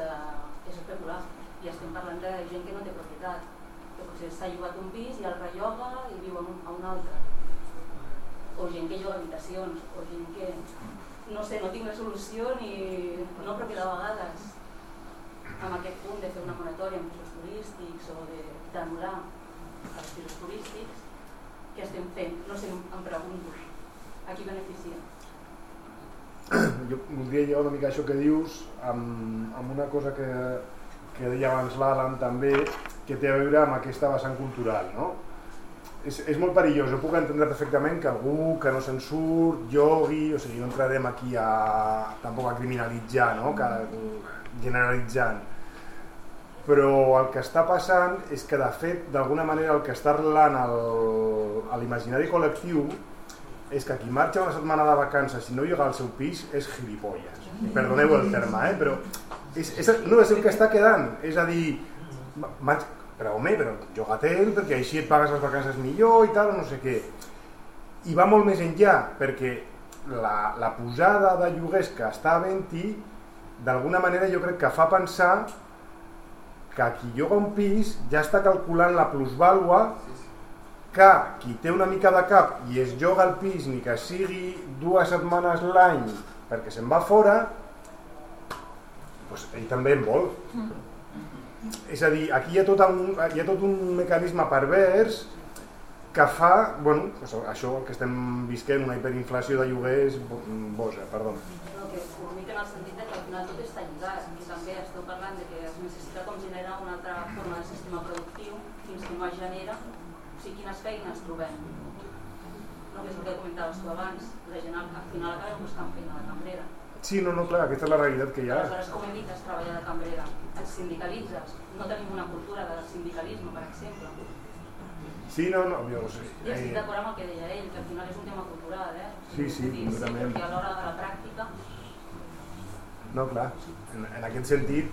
especular. I estem parlant de gent que no té propietat, que potser s'ha llogat un pis i el relloga i viu a un altre, o gent que lloga habitacions, o gent que no sé, no tinc la solució ni no, però que de vegades amb aquest punt de fer una moratòria en pisos turístics o d'anul·lar els pisos turístics, què estem fent? No sé, em pregunto a qui beneficia. Jo voldria llevar una mica això que dius amb una cosa que deia abans l'Alan també, que té a veure amb aquesta vessant cultural, no? És molt perillós, jo puc entendre perfectament que algú que no se'n surt llogui, o sigui, no entrarem aquí tampoc a criminalitzar, no? Generalitzant, però el que està passant és que de fet d'alguna manera el que està arrelant a l'imaginari col·lectiu és que qui marxa una setmana de vacances i no lloga al seu pis és gilipolles, perdoneu el terme, però no és el que està quedant, és a dir, però home, però lloga-te'l perquè així et pagues les vacances millor i tal, no sé què. I va molt més enllà, perquè la pujada de lloguers que està havent-hi d'alguna manera jo crec que fa pensar que qui lloga un pis ja està calculant la plusvàlua que qui té una mica de cap i es lloga el pis ni que sigui 2 setmanes l'any perquè se'n va fora, doncs ell també en vol. És a dir, aquí hi ha tot un mecanisme pervers que fa, bueno, això que estem visquent, una hiperinflació de lloguers boja, perdó. No, que únic en el sentit que al final tot està lligat i també esteu parlant de que es necessita com generar una altra forma de sistema productiu fins que no es genera, o sigui, quines feines trobem. No, que és el que comentaves tu abans, la gent al final acaba buscant feina de cambrera. Sí, no, clar, aquesta és la realitat que hi ha. Aleshores, com evites treballar de cambrera? Et sindicalitzes? No tenim una cultura de sindicalisme, per exemple. Sí, no, jo no sé. I estic d'acord amb el que deia ell, que al final és un tema cultural, Sí, completament. Perquè a l'hora de la pràctica... No, clar, en aquest sentit,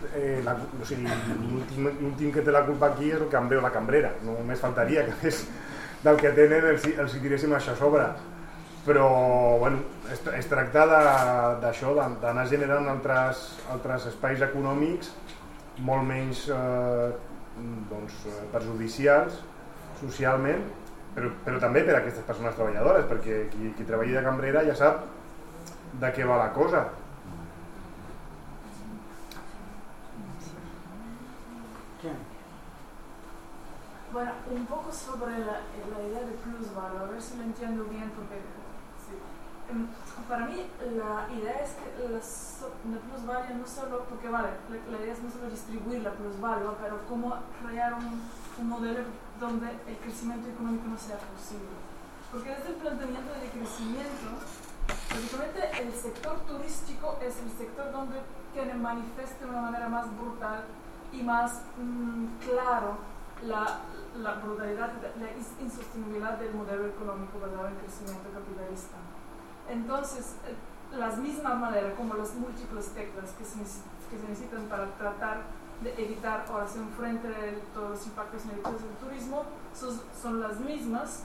l'últim que té la culpa aquí és el cambrer o la cambrera, només faltaria que més del que tenen els hi tiréssim això a sobre. Però, bueno, es tracta d'això, d'anar generant altres espais econòmics molt menys perjudicials socialment, però també per a aquestes persones treballadores, perquè qui treballi de cambrera ja sap de què va la cosa. Bueno, un poco sobre la idea de plusvalor, a ver si lo entiendo bien, porque sí. Para mí la idea es que la plusvalía no solo, porque vale, la idea es no solo distribuir la plusvalía, pero cómo crear un modelo donde el crecimiento económico no sea posible. Porque desde el planteamiento de crecimiento, básicamente el sector turístico es el sector donde tiene manifiesta de una manera más brutal y más claro la brutalidad, la insostenibilidad del modelo económico basado en crecimiento capitalista. Entonces, las mismas maneras como las múltiples teclas que se necesitan para tratar de evitar o hacer frente a todos los impactos negativos del turismo son las mismas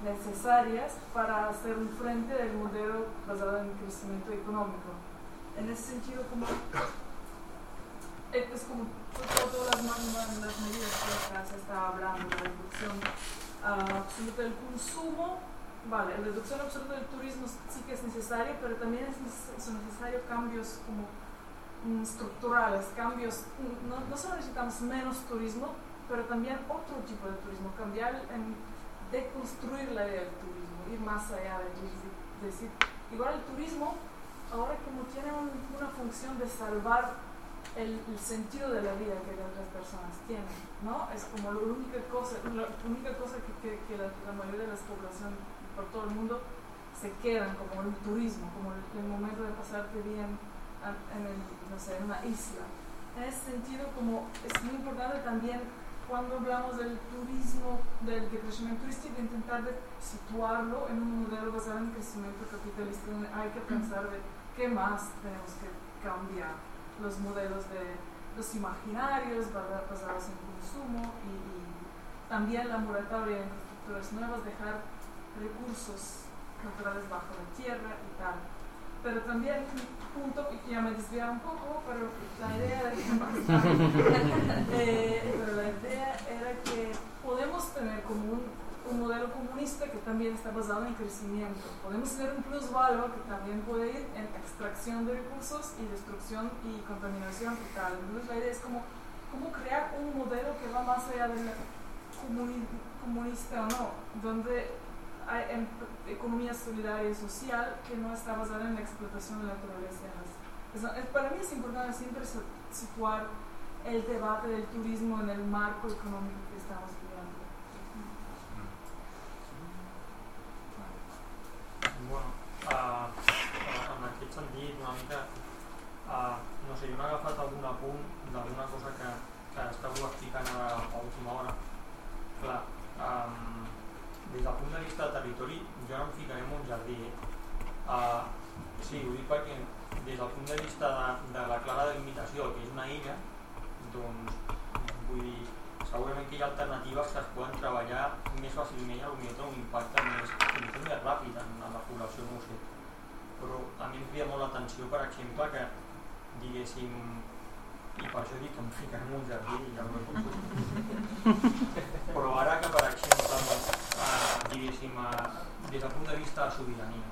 necesarias para hacer un frente del modelo basado en crecimiento económico. En ese sentido, es como todas las medidas que se está hablando, la reducción absoluta del consumo, vale, la reducción absoluta del turismo sí que es necesario, pero también son necesarios cambios como estructurales, cambios, no solo necesitamos menos turismo, pero también otro tipo de turismo, cambiar deconstruir la idea del turismo, ir más allá de decir, igual el turismo ahora como tiene una función de salvar el sentido de la vida que las otras personas tienen, ¿no? Es como la única cosa que la mayoría de la población por todo el mundo se quedan como el turismo, como el momento de pasarte bien en una isla. En ese sentido, como es muy importante también cuando hablamos del turismo, del crecimiento turístico, intentar de situarlo en un modelo basado en crecimiento capitalista, donde hay que pensar de qué más tenemos que cambiar. Los modelos de los imaginarios basados en consumo y también la moratoria de infraestructuras nuevas, dejar recursos naturales bajo la tierra y tal. Pero también un punto que ya me desvía un poco, pero la idea era que podemos tener como un modelo comunista que también está basado en crecimiento. Podemos tener un plusvalor que también puede ir en extracción de recursos y destrucción y contaminación y tal. Entonces la idea es como crear un modelo que va más allá de la comunista o no, donde hay economía solidaria y social que no está basada en la explotación de la naturaleza. Para mí es importante siempre situar el debate del turismo en el marco económico que estamos viviendo. Bueno, en aquest sentit, una mica, no sé, jo m'he agafat algun apunt d'alguna cosa que estàveu explicant a l'última hora. Clar, des del punt de vista de territori, jo no em ficaré en un jardí. Sí, ho dic perquè des del punt de vista de la clara delimitació, que és una illa, doncs, vull dir, segurament que hi ha alternatives que es poden treballar més fàcilment i potser tenen un impacte més ràpid en la població, no ho sé. Però a mi em crida molt l'atenció, per exemple, que diguéssim, i per això dic que em ficaré en un jardí i ja no com però ara que, per exemple, diguéssim, des del punt de vista de sobirania,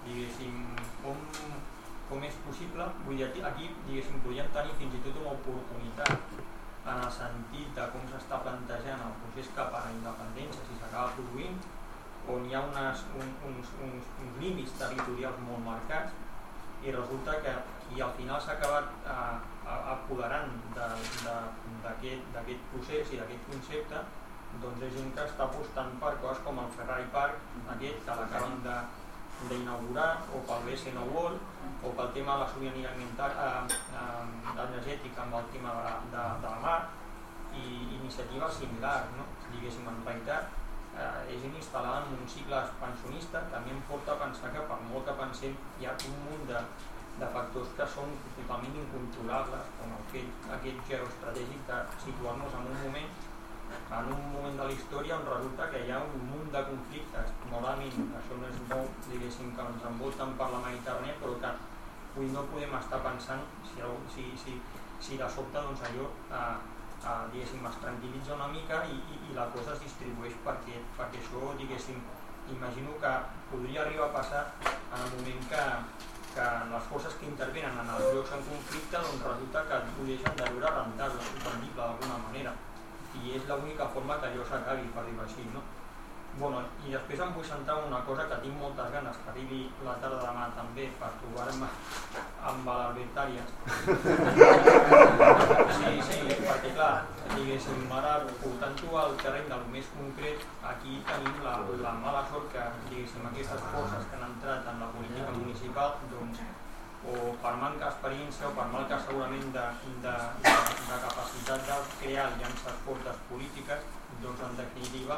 diguéssim, com és possible, vull dir, aquí, diguéssim, podríem tenir fins i tot una oportunitat en el sentit de com s'està plantejant el procés cap a la independència, si s'acaba s'acaba produint, on hi ha uns límits territorials molt marcats, i resulta que qui al final s'ha acabat apoderant d'aquest procés i d'aquest concepte, doncs és gent que està apostant per coses com el Ferrari Park, aquest que l'acaben d'inaugurar, o pel BCN World, o pel tema de la sobirania energètica amb el tema de la mar, i iniciatives similars, no? Diguéssim, en realitat és gent instal·lada en un cicle expansionista que a mi em porta a pensar que per molt que pensem hi ha un munt de factors que són totalment incontrolables, com aquest geoestratègic de situar-nos en un moment de la història on resulta que hi ha un munt de conflictes. Normalment això no és nou, diguéssim, que ens envolten per la Mediterrània, però que avui no podem estar pensant si de sobte doncs allò diguéssim, es tranquil·litza una mica i la cosa es distribueix perquè això, diguéssim, imagino que podria arribar a passar en el moment que les forces que intervenen en els llocs en conflicte doncs resulta que ho deixen de veure rendible d'alguna manera, i és l'única forma que allò s'acabi, per dir-ho així, no? Bueno, i després em vull centrar en una cosa que tinc moltes ganes que arribi la tarda demà també per trobar-me amb l'Albert Arias. Sí, perquè clar, diguéssim, ara portant-ho al terreny del més concret, aquí tenim la mala sort que, diguéssim, aquestes forces que han entrat en la política municipal, doncs, o per manca d'experiència o per manca segurament de capacitat de crear aliances fortes polítiques, doncs en definitiva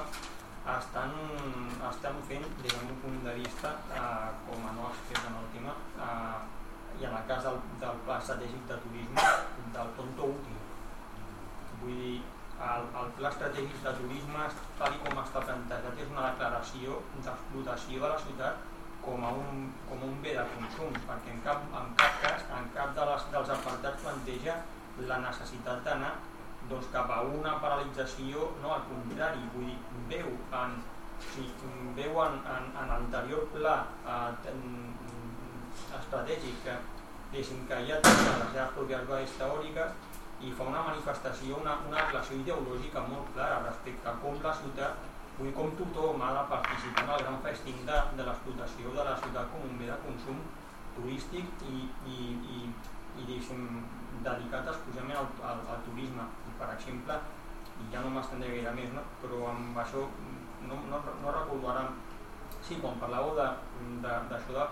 estan fent, des del meu punt de vista, com a no expert en el tema, i en el cas del pla estratègic de turisme, del tonto útil. Vull dir, el pla estratègic de turisme, tal com està plantejat, és una declaració d'explotació de la ciutat com a un bé de consum, perquè en cap cas, en cap dels apartats planteja la necessitat d'anar doncs, cap a una paralització, no, al contrari, vull dir, veu en l'anterior pla estratègic que ja té les seves pròpies bases teòriques i fa una manifestació, una declaració ideològica molt clara respecte a com la ciutat, vull dir, com tothom ha de participar en el gran festín de l'explotació de la ciutat com un bé de consum turístic i dedicat exclusivament al turisme. Per exemple, i ja no m'estendré gaire més, no? Però amb això no recordo ara, sí, quan parlàveu d'això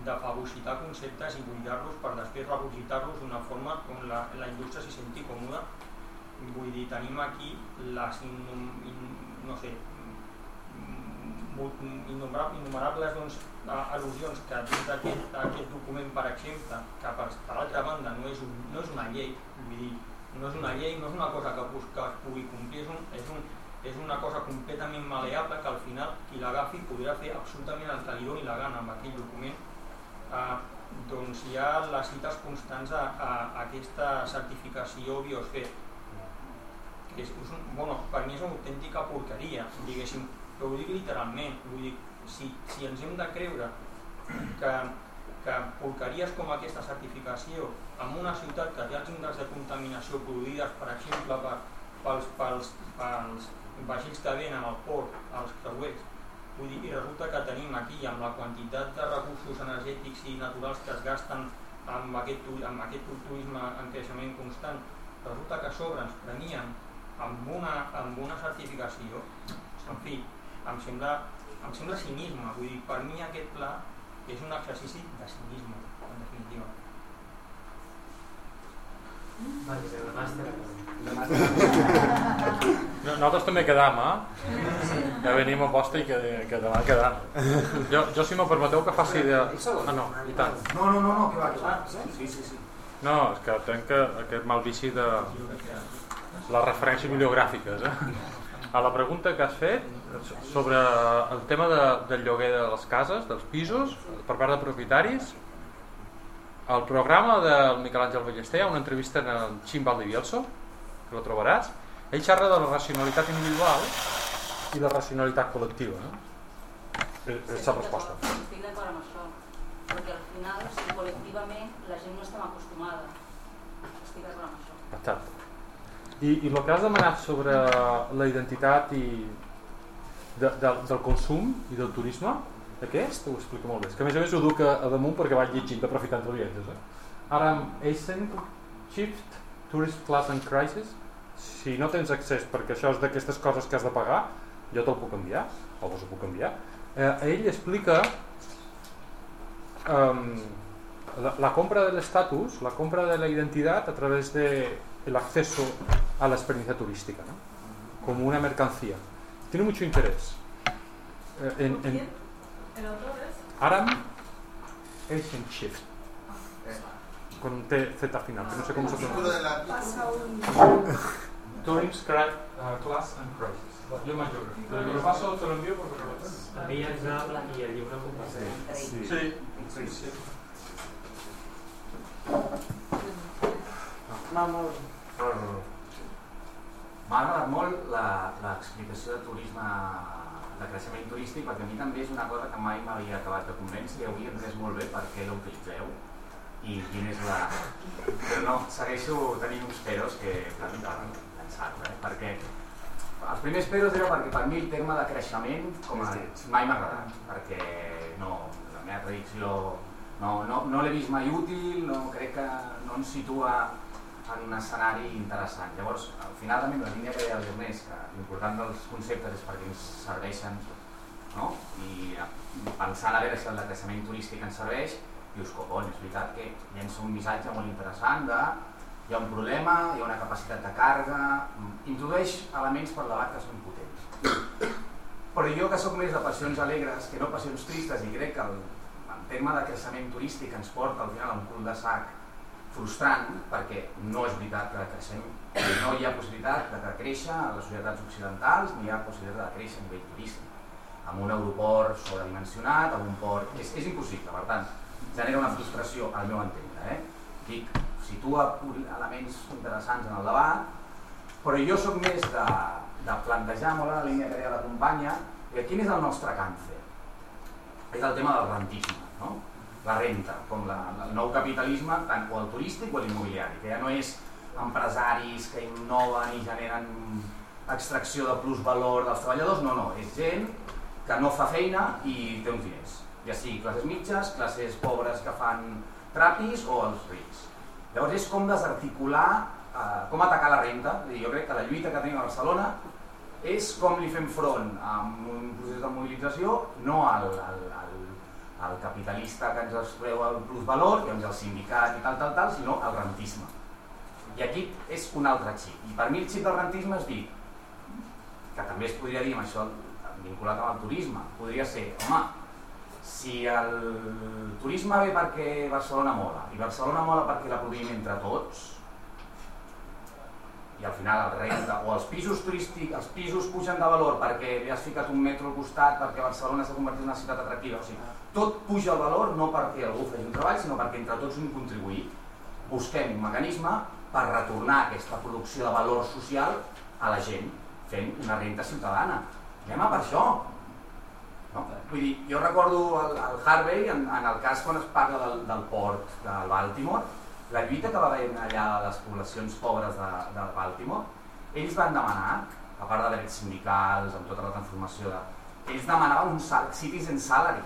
de fagocitar conceptes i buidar-los per després regurgitar-los d'una forma on la indústria s'hi senti còmoda. Vull dir, tenim aquí les innumerables doncs, al·lusions que dins d'aquest document, per exemple, que per altra banda no és una llei, vull dir, no és una llei, no és una cosa que es pugui complir, és una cosa completament maleable que al final qui l'agafi podrà fer absolutament el que li doni la gana amb aquell document. Doncs hi ha les cites constants a aquesta certificació biosfera, que per mi és una autèntica porqueria, diguéssim, però ho dic literalment, vull dir, si ens hem de creure que porqueries com aquesta certificació en una ciutat que té els índexs de contaminació produïdes, per exemple, pels vaixells que venen al port, als creuers, vull dir, i resulta que tenim aquí, amb la quantitat de recursos energètics i naturals que es gasten amb aquest turisme en creixement constant, resulta que a sobre ens premien amb una certificació, en fi, em sembla cinisme, vull dir, per mi aquest pla és un exercici de cinisme, en definitiva. Nosaltres també quedam, ja venim a posta i que demà quedam. Jo, si m'ho permeteu, que faci de... no, i tant. No, que va. Sí. No, és que tenc aquest mal vici de les referències bibliogràfiques. A la pregunta que has fet sobre el tema del lloguer de les cases, dels pisos, per part de propietaris, al programa del Miquel Àngel Ballester hi ha una entrevista en el Xim Valdivielso, que lo trobaràs. Ell xerra de la racionalitat individual i la racionalitat col·lectiva, no? És la resposta. Estic d'acord amb això, perquè al final, col·lectivament, la gent no estem acostumada. Estic d'acord amb això. Exacte. I el que has demanat sobre la identitat i del consum i del turisme, aquest ho explica molt bé. És que a més ho duc a damunt perquè vaig llegint aprofitant els viatges. Aram Eisen, Shift, Tourist Class and Crisis. Si no tens accés perquè això és d'aquestes coses que has de pagar, jo te'l puc enviar, o vos ho puc enviar. Ell explica la compra del estatus, la compra de la identidad a través del acceso a la experiencia turística, ¿no? Como una mercancía. Tiene mucho interés. ¿El autor es? Aram Eisen Shift. Con un Z final, que no sé cómo se pronuncia. Tourist Class and Crisis. Yo mayor. Lo paso, te lo envío porque no lo tengo. Envia'ns-el i el llibre el compartim. Sí. M'ha agradat molt l'explicació de turisme, de creixement turístic, perquè a mi també és una cosa que mai m'havia acabat de convèncer i avui he entès molt bé per què l'utilitzeu i quin és la... Però no, segueixo tenint uns peros que pensar-ho, perquè els primers peros era perquè per mi el terme de creixement com a mai m'ha agradat, perquè no, la meva tradició no l'he vist mai útil, no crec que no ens situa en un escenari interessant. Llavors, al final també la línia que deia el Ernest, que l'important dels conceptes és perquè ens serveixen, no? I pensant a veure si el de creixement turístic ens serveix, dius, copon, és veritat que llença un missatge molt interessant de hi ha un problema, hi ha una capacitat de càrrega, introdueix elements per debat que són potents. Però jo que sóc més de passions alegres que no passions tristes i crec que el tema de creixement turístic ens porta al final a un cul de sac frustrant, perquè no és veritat que creixem, no hi ha possibilitat de créixer a les societats occidentals, ni hi ha possibilitat de créixer a nivell turístic, amb un aeroport sobredimensionat, amb un port... És impossible, per tant, genera una frustració al meu entendre. Dic, situa elements interessants en el debat, però jo sóc més de plantejar molt la línia que deia la companya, quin és el nostre càncer? És el tema del rentisme, no? La renta, com el nou capitalisme, tant o el turístic o l'immobiliari, que ja no és empresaris que innoven i generen extracció de plusvalor dels treballadors, no, és gent que no fa feina i té uns diners, ja sigui classes mitges, classes pobres que fan trapis o els rics. Llavors és com desarticular, com atacar la renta. Jo crec que la lluita que tenim a Barcelona és com li fem front amb un procés de mobilització, no al capitalista que ens extreu el plusvalor, que és el sindicat i tal, sinó al rentisme. I aquí és un altre xip. I per mi el xip del rentisme és dir, que també es podria dir amb això vinculat amb el turisme, podria ser, home, si el turisme ve perquè Barcelona mola, i Barcelona mola perquè la produïm entre tots, i al final el renta, o els pisos turístics, els pisos pugen de valor perquè li has ficat un metro al costat, perquè Barcelona s'ha convertit en una ciutat atractiva, o sigui, tot puja el valor no perquè algú faci un treball, sinó perquè entre tots hem contribuït. Busquem un mecanisme per retornar aquesta producció de valor social a la gent, fent una renta ciutadana. Anem a per això. No? Vull dir, jo recordo el Harvey, en el cas quan es parla del port de Baltimore, la lluita que va haver allà a les poblacions pobres de Baltimore, ells van demanar, a part de drets sindicals, amb tota la transformació, ells demanaven un citizen salary,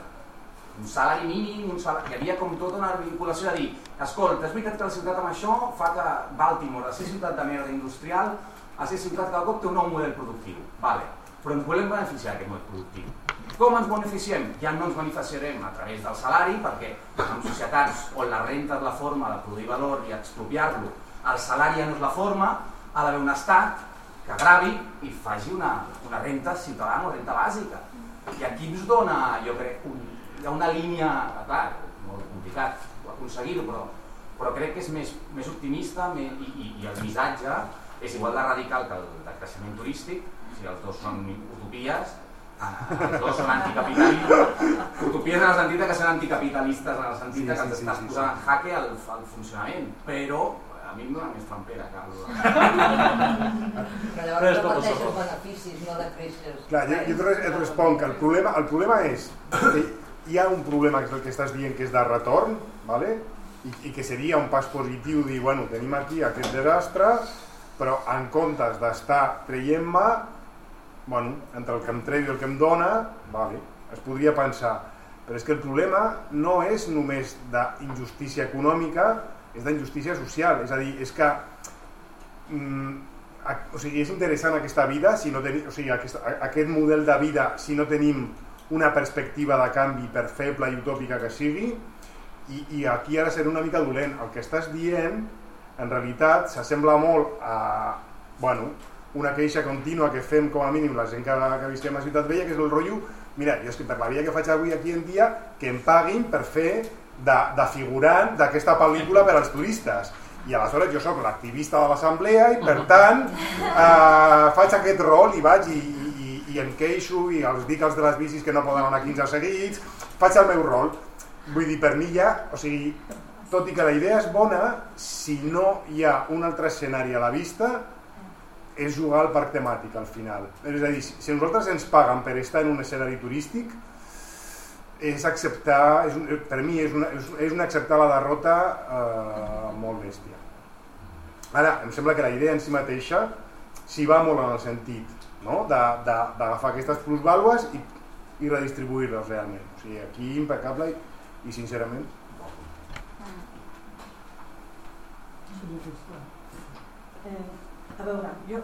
un salari mínim, hi havia com tota una vinculació de dir, escolta, és veritat que la ciutat amb això fa que Baltimore, de ser ciutat de merda industrial, a ser ciutat que cada cop té un nou model productiu, vale. Però ens volem beneficiar d'aquest model productiu. Com ens beneficiem? Ja no ens beneficiarem a través del salari, perquè en societats on la renta és la forma de produir valor i expropiar-lo, el salari ja no és la forma, ha d'haver un estat que gravi i faci una renta ciutadana, una renta bàsica. I aquí ens dona, jo crec, hi ha una línia, clar, molt complicat aconseguir-ho, però crec que és més optimista i el missatge és igual de radical que el de creixement turístic, si els dos són utopies, els dos són anticapitalistes, utopies en el sentit que són anticapitalistes, en el sentit que els estàs posant en jaque al funcionament, però a mi em dona més trampera que Però llavors reparteixes beneficis, no decreixes. Clar, jo et responc que el problema és que hi ha un problema que és el que estàs dient, que és de retorn, ¿vale? I que seria un pas positiu dir, bueno, tenim aquí aquest desastre, però en comptes d'estar traient-me bueno, entre el que em treu i el que em dona, vale, es podria pensar. Però és que el problema no és només d'injustícia econòmica, és d'injustícia social. És a dir, és que és interessant aquesta vida, si no tenim, aquest model de vida, si no tenim una perspectiva de canvi, per feble i utòpica que sigui, i aquí ha de ser una mica dolent. El que estàs dient, en realitat, s'assembla molt a una queixa contínua que fem com a mínim la gent que visquem a Ciutat Vella, que és el rotllo, mira, jo és que per la vida que faig avui aquí en dia, que em paguin per fer de figurant d'aquesta pel·lícula per als turistes. I aleshores jo sóc l'activista de l'assemblea i per tant faig aquest rol i vaig i em queixo i els dic als de les bicis que no poden anar 15 seguits, faig el meu rol. Vull dir, per mi ja, tot i que la idea és bona, si no hi ha un altre escenari a la vista, és jugar al parc temàtic al final. És a dir, si nosaltres ens paguen per estar en un escenari turístic, és acceptar, per mi és un acceptar la derrota molt bèstia. Ara, em sembla que la idea en si mateixa s'hi va molt en el sentit d'agafar aquestes plusvàlues i redistribuir-les realment. O sigui, aquí impecable i sincerament a veure, jo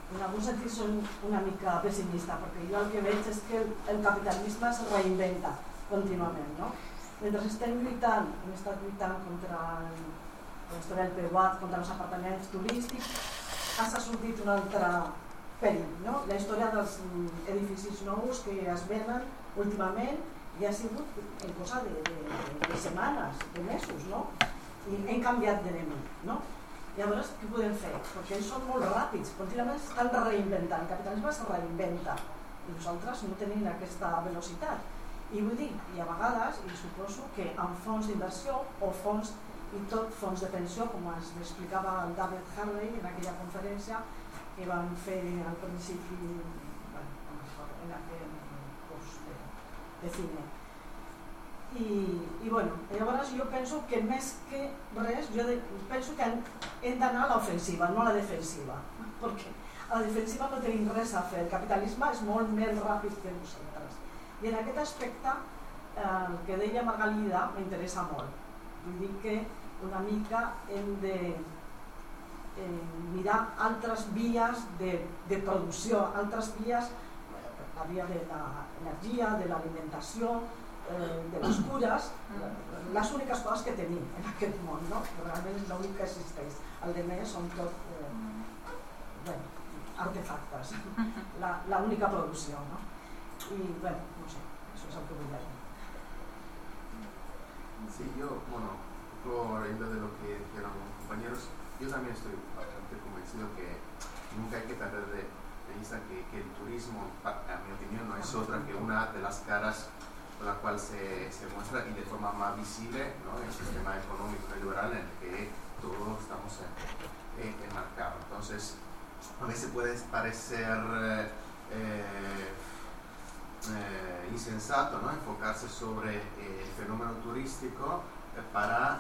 en algun sentit soc una mica pessimista perquè jo el que veig és que el capitalisme es reinventa contínuament, no? Mentre estem lluitant, hem estat lluitant contra la història del PWAT, contra els apartaments turístics, ha sortit un altre perill, no? La història dels edificis nous que es venen últimament i ha sigut en cosa de setmanes, de mesos, no? I hem canviat d'enemic, no? Llavors, què podem fer? Perquè ells són molt ràpids, contínuament estan reinventant, el capitalisme es reinventa i nosaltres no tenim aquesta velocitat. I vull dir, i a vegades, i suposo que amb fons d'inversió o fons, i tot fons de pensió, com ens explicava el David Harvey en aquella conferència que van fer al principi en aquell curs de cine. I bueno, llavors jo penso que més que res, jo penso que hem d'anar a l'ofensiva, no a la defensiva, perquè a la defensiva no tenim res a fer, el capitalisme és molt més ràpid que nosaltres. I en aquest aspecte, el que deia Margalida m'interessa molt. Vull dir que una mica hem de mirar altres vies de producció, altres vies, la via de l'energia, de l'alimentació, de les cures, les úniques coses que tenim en aquest món, no? Realment és l'únic que existeix. El de més són tot artefactes, l'única producció, no? I, no sé, això és el que vull dir. Sí, yo, por ejemplo de lo que dijeron los compañeros, yo también estoy bastante convencido que nunca hay que perder de vista que el turismo, a mi opinión, no es otra que una de las caras con la cual se muestra y de forma más visible, ¿no? El sistema económico liberal en el que todos estamos enmarcados. Entonces, a veces puede parecer insensato, ¿no? Enfocarse sobre el fenómeno turístico para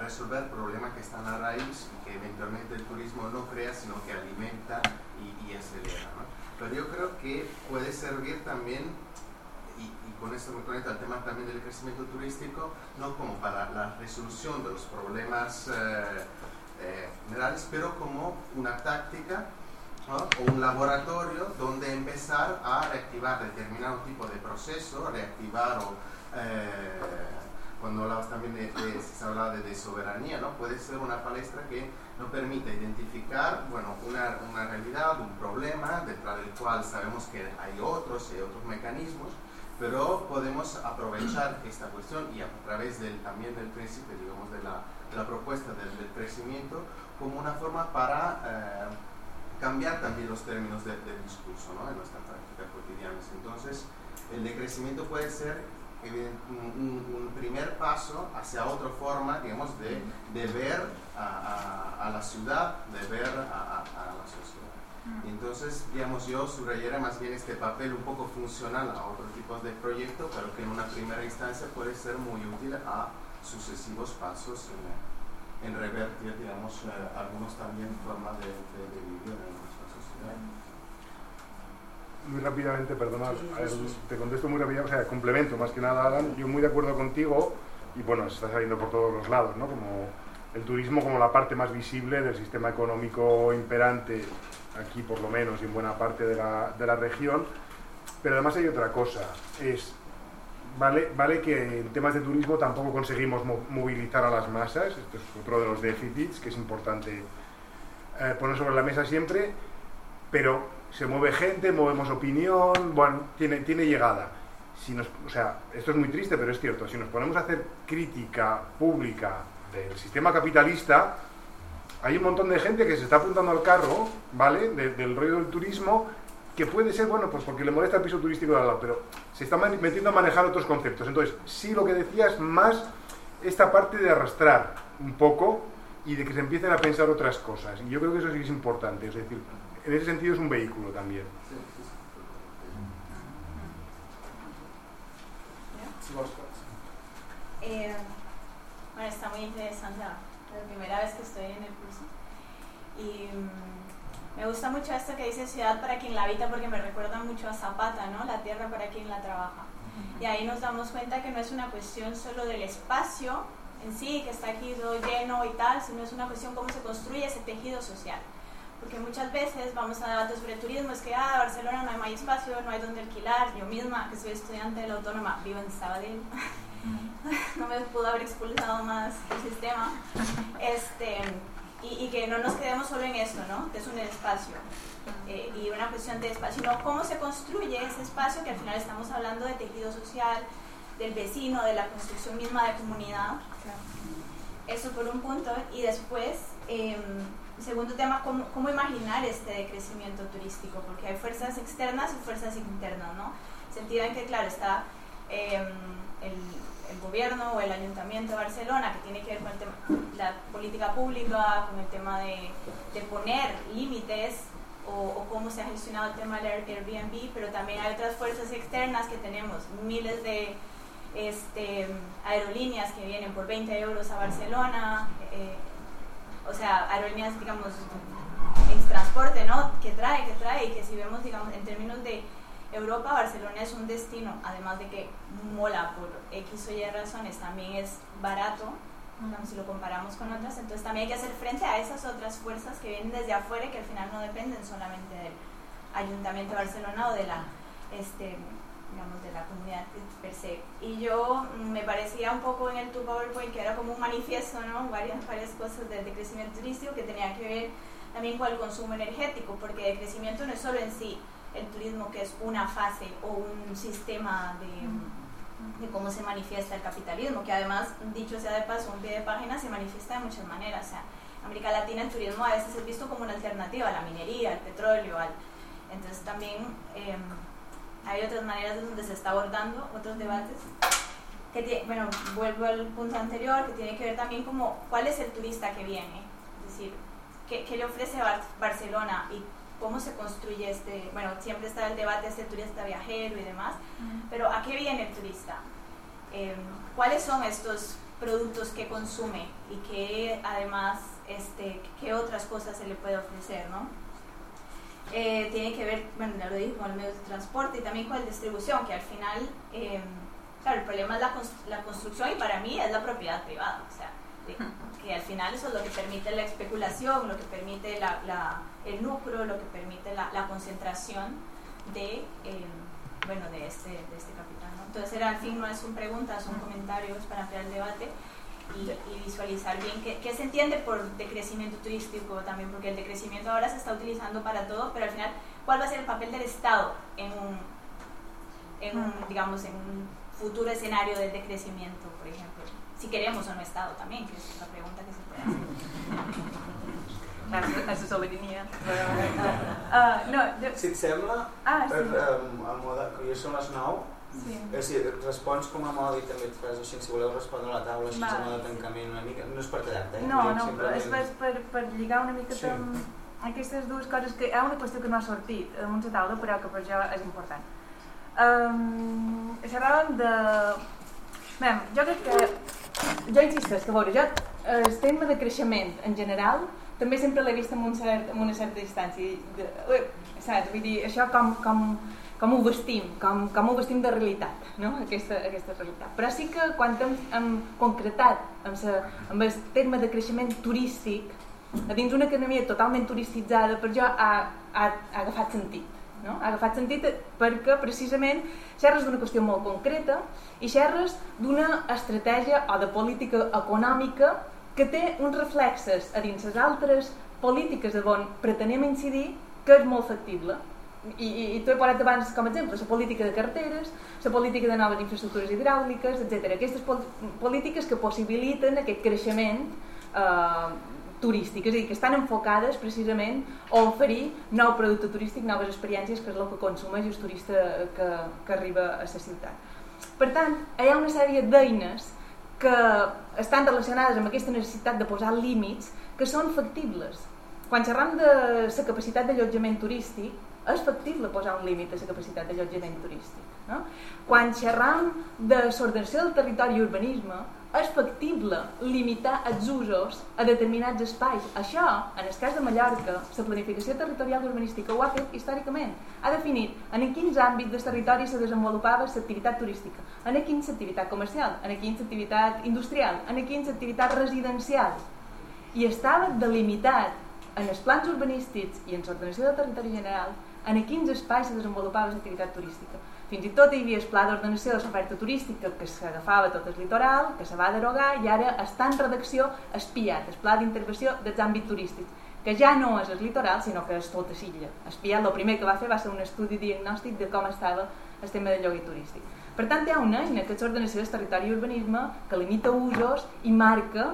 resolver problemas que están a raíz y que eventualmente el turismo no crea, sino que alimenta y acelera, ¿no? Pero yo creo que puede servir también, y con esto me conecta al tema también del crecimiento turístico, no como para la resolución de los problemas generales, pero como una táctica, ¿no? O un laboratorio donde empezar a reactivar determinado tipo de proceso, reactivar cuando hablabas también se hablaba de soberanía, ¿no? Puede ser una palestra que nos permite identificar, una realidad, un problema, detrás del cual sabemos que hay otros mecanismos, pero podemos aprovechar esta cuestión y a través también del principio, digamos, de la propuesta del crecimiento como una forma para cambiar también los términos del discurso, ¿no? En nuestra práctica cotidiana. Entonces, el decrecimiento puede ser un primer paso hacia otra forma, digamos, de ver a la ciudad, de ver a la sociedad. Y entonces, digamos, yo subrayaría más bien este papel un poco funcional a otros tipos de proyectos, pero que en una primera instancia puede ser muy útil a sucesivos pasos en revertir, digamos, algunos también formas de vivir en nuestra sociedad. rápidamente, perdona, te contesto muy rápidamente, o sea, complemento más que nada, Alan, yo muy de acuerdo contigo, y bueno, se está saliendo por todos los lados, ¿no? Como el turismo como la parte más visible del sistema económico imperante, aquí por lo menos, y en buena parte de la región, pero además hay otra cosa, vale que en temas de turismo tampoco conseguimos movilizar a las masas, esto es otro de los déficits que es importante poner sobre la mesa siempre, pero se mueve gente, movemos opinión, bueno, tiene llegada. O sea, esto es muy triste, pero es cierto, si nos ponemos a hacer crítica pública del sistema capitalista, hay un montón de gente que se está apuntando al carro, ¿vale?, del rollo del turismo, que puede ser, bueno, pues porque le molesta el piso turístico de al lado, pero se está metiendo a manejar otros conceptos. Entonces, sí, lo que decías, más esta parte de arrastrar un poco y de que se empiecen a pensar otras cosas. Y yo creo que eso sí es importante, es decir, en ese sentido es un vehículo también. Bueno, está muy interesante, la primera vez que estoy en el curso. Y me gusta mucho esto que dice ciudad para quien la habita, porque me recuerda mucho a Zapata, ¿no? La tierra para quien la trabaja. Y ahí nos damos cuenta que no es una cuestión solo del espacio en sí, que está aquí todo lleno y tal, sino es una cuestión cómo se construye ese tejido social. Porque muchas veces vamos a debates sobre turismo, es que Barcelona no hay espacio, no hay donde alquilar. Yo misma, que soy estudiante de la Autónoma, vivo en Sabadell, no me pudo haber expulsado más el sistema, y que no nos quedemos solo en esto, ¿no? Que es un espacio, y una cuestión de espacio, sino cómo se construye ese espacio, que al final estamos hablando de tejido social, del vecino, de la construcción misma de comunidad. Eso por un punto. Y después, segundo tema, ¿cómo imaginar este decrecimiento turístico? Porque hay fuerzas externas y fuerzas internas, ¿no? Sentido en que, claro, está el gobierno o el ayuntamiento de Barcelona, que tiene que ver con el tema, la política pública, con el tema de poner límites, o cómo se ha gestionado el tema del Airbnb, pero también hay otras fuerzas externas que tenemos, miles de aerolíneas que vienen por 20 euros a Barcelona, o sea, aerolíneas, digamos, en transporte, ¿no? que trae, y que si vemos, digamos, en términos de Europa, Barcelona es un destino, además de que mola por X o Y razones, también es barato, digamos, si lo comparamos con otras, entonces también hay que hacer frente a esas otras fuerzas que vienen desde afuera y que al final no dependen solamente del Ayuntamiento de Barcelona o de la digamos, de la comunidad per se. Y yo me parecía un poco en tu PowerPoint que era como un manifiesto, ¿no? varias cosas del decrecimiento turístico que tenía que ver también con el consumo energético, porque el crecimiento no es solo en sí el turismo, que es una fase o un sistema de cómo se manifiesta el capitalismo, que además, dicho sea de paso, un pie de página se manifiesta de muchas maneras. O sea, en América Latina el turismo a veces es visto como una alternativa a la minería, al petróleo, entonces también hay otras maneras donde se está abordando otros debates. Bueno, vuelvo al punto anterior, que tiene que ver también como cuál es el turista que viene, es decir, qué le ofrece Barcelona y cómo se construye bueno, siempre está el debate de turista viajero y demás, pero ¿a qué viene el turista? ¿Cuáles son estos productos que consume y que además, qué otras cosas se le puede ofrecer, ¿no? Tiene que ver, bueno, ya lo dije, con el medio de transporte y también con la distribución, que al final, claro, el problema es la construcción y para mí es la propiedad privada, o sea, que al final eso es lo que permite la especulación, lo que permite el lucro, lo que permite la concentración de este capital, ¿no? Entonces al fin no son preguntas, son comentarios para ampliar el debate y visualizar bien qué se entiende por decrecimiento turístico también, porque el decrecimiento ahora se está utilizando para todo, pero al final, ¿cuál va a ser el papel del Estado en un futuro escenario del decrecimiento, por ejemplo? Si queremos o no Estado también, que és la pregunta que se puede hacer. Assessoria. Si et sembla, a moda, que ja són les 9, respons com a moda i també et fas així, si voleu respondre a la taula, així a moda de tancament una mica, no és per quedar-te, No, és per lligar una mica amb aquestes dues coses, que hi ha una qüestió que no ha sortit damunt la taula, però que per jo és important. Xerràvem de... Jo crec que... Jo insisteixo, que a veure, el tema de creixement en general també sempre l'he vist amb una certa distància. Saps? Vull dir, això com ho vestim, com ho vestim de realitat, no? Aquesta realitat. Però sí que quan hem concretat amb el terme de creixement turístic, a dins una economia totalment turistitzada, per jo ha agafat sentit. No? Ha agafat sentit perquè precisament xerres d'una qüestió molt concreta i xerres d'una estratègia o de política econòmica que té uns reflexes a dins les altres polítiques on pretenem incidir que és molt factible. I t'ho he posat abans com a exemple, la política de carreteres, la política de noves infraestructures hidràuliques, etc. Aquestes polítiques que possibiliten aquest creixement turístic, és a dir, que estan enfocades precisament a oferir nou producte turístic, noves experiències, que és el que consumeix el turista que arriba a la ciutat. Per tant, hi ha una sèrie d'eines que estan relacionades amb aquesta necessitat de posar límits que són factibles. Quan xerram de la capacitat d'allotjament turístic, és factible posar un límit a la capacitat d'allotjament turístic. No? Quan xerram de l'ordenació del territori i urbanisme, és factible limitar els usos a determinats espais. Això, en el cas de Mallorca, la planificació territorial urbanística ho ha fet històricament. Ha definit en quins àmbits del territori se desenvolupava l'activitat turística, en quins l'activitat comercial, en quins l'activitat industrial, en quins l'activitat residencial. I estava delimitat en els plans urbanístics i en l'ordenació del territori general en quins espais se desenvolupava l'activitat turística. Fins i tot hi havia el pla d'ordenació de l'oferta turística que s'agafava tot el litoral, que se va derogar i ara està en redacció espiat, el pla d'intervenció dels àmbits turístics, que ja no és el litoral, sinó que és tota l'illa. Espiat, el primer que va fer va ser un estudi diagnòstic de com estava el tema del lloguer turístic. Per tant, hi ha una eina que és l'ordenació del territori i urbanisme que limita usos i marca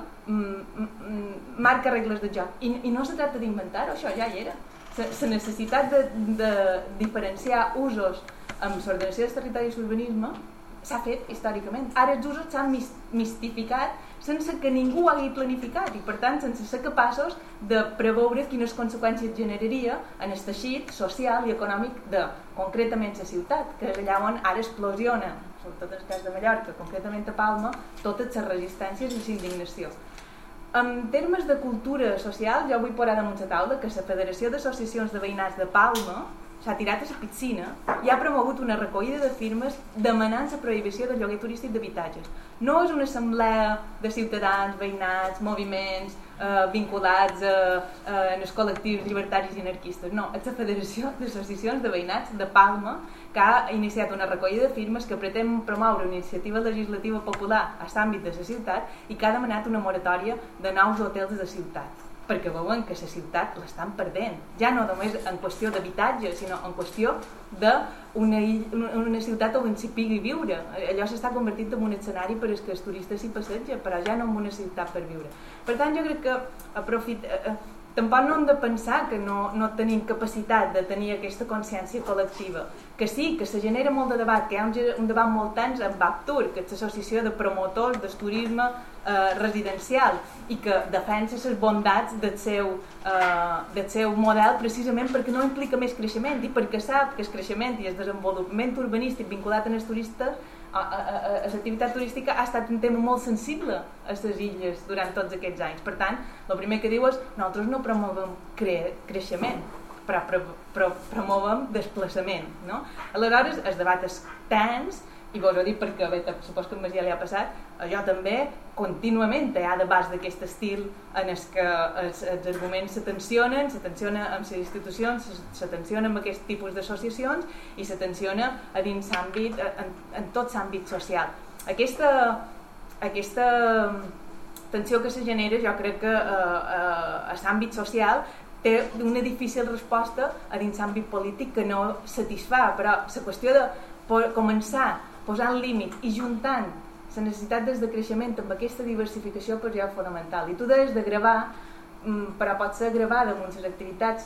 regles de joc. I no se tracta d'inventar-ho, això ja hi era. La necessitat de diferenciar usos amb l'ordenació dels territoris i urbanisme s'ha fet històricament. Ara els usos s'han mistificat sense que ningú hagi planificat i per tant sense ser capaços de preveure quines conseqüències generaria en el teixit social i econòmic de concretament la ciutat, que és allà on ara explosiona, sobretot en el cas de Mallorca, concretament a Palma, totes les resistències i l'indignació. En termes de cultura social, jo vull posar damunt la taula que la Federació d'Associacions de Veïnats de Palma s'ha tirat a la piscina i ha promogut una recollida de firmes demanant la prohibició del lloguer turístic d'habitatges. No és una assemblea de ciutadans, veïnats, moviments vinculats en els col·lectius llibertaris i anarquistes. No, és la Federació d'Associacions de Veïnats de Palma que ha iniciat una recollida de firmes que pretén promoure una iniciativa legislativa popular a l'àmbit de la ciutat i que ha demanat una moratòria de nous hotels de ciutat, perquè veuen que la ciutat l'estan perdent, ja no només en qüestió d'habitatge, sinó en qüestió d'una ciutat on s'hi pugui viure. Allò s'està convertint en un escenari per als que els turistes s'hi passegen, però ja no en una ciutat per viure. Per tant, jo crec que tampoc no hem de pensar que no tenim capacitat de tenir aquesta consciència col·lectiva, que sí, que se genera molt de debat, que hi ha un debat molt tens amb Baptur, que és l'associació de promotors del turisme residencial i que defensa les bondats del seu model precisament perquè no implica més creixement i perquè sap que el creixement i el desenvolupament urbanístic vinculat en els turistes a l'activitat turística ha estat un tema molt sensible a les illes durant tots aquests anys. Per tant, el primer que diu és nosaltres no promovem creixement, però promovem desplaçament. No? Aleshores, el debat és tens, i vos ho dic perquè supos que a Masia li ha passat, jo també contínuament hi ha debats d'aquest estil en què els arguments se tensionen amb les institucions, se tensionen amb aquest tipus d'associacions i se tensiona a dins l'àmbit, en tot l'àmbit social. Aquesta tensió que se genera jo crec que a l'àmbit social té una difícil resposta a dins l'àmbit polític que no satisfà, però la qüestió de començar posant límit i juntant la necessitat de creixement amb aquesta diversificació per jo és fonamental. I tu deies de gravar, però pot ser gravar damunt les activitats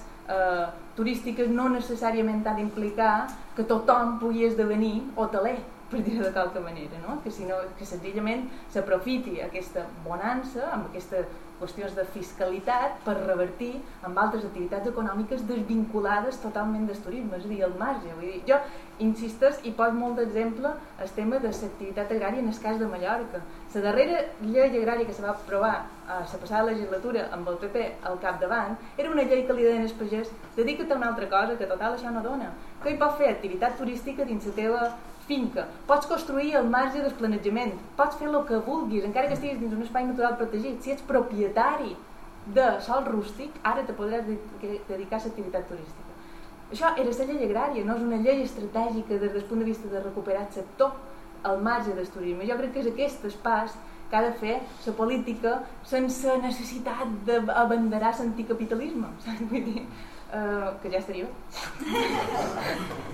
turístiques no necessàriament ha d'implicar que tothom pugui esdevenir hoteler, per dir-ho de qualque manera, no? Que senzillament s'aprofiti aquesta bonança amb aquesta qüestions de fiscalitat per revertir amb altres activitats econòmiques desvinculades totalment del turisme, és a dir, el marge. Vull dir, jo insistes i poso molt d'exemple el tema de l'activitat agrària en el cas de Mallorca. La darrera llei agrària que se va aprovar a la passada legislatura amb el PP al capdavant era una llei que li deien al pagès: dedica't a una altra cosa, que total això no dona. Que hi pots fer activitat turística dins la teva finca, pots construir al marge del planejament, pots fer el que vulguis, encara que estiguis dins un espai natural protegit. Si ets propietari de sòl rústic, ara te podràs dedicar a l'activitat turística. Això era la llei agrària, no és una llei estratègica des del punt de vista de recuperar el sector al marge del turisme. Jo crec que és aquest pas que ha de fer la política sense necessitat d'abanderar l'anticapitalisme. Vull dir, que ja estaria bé.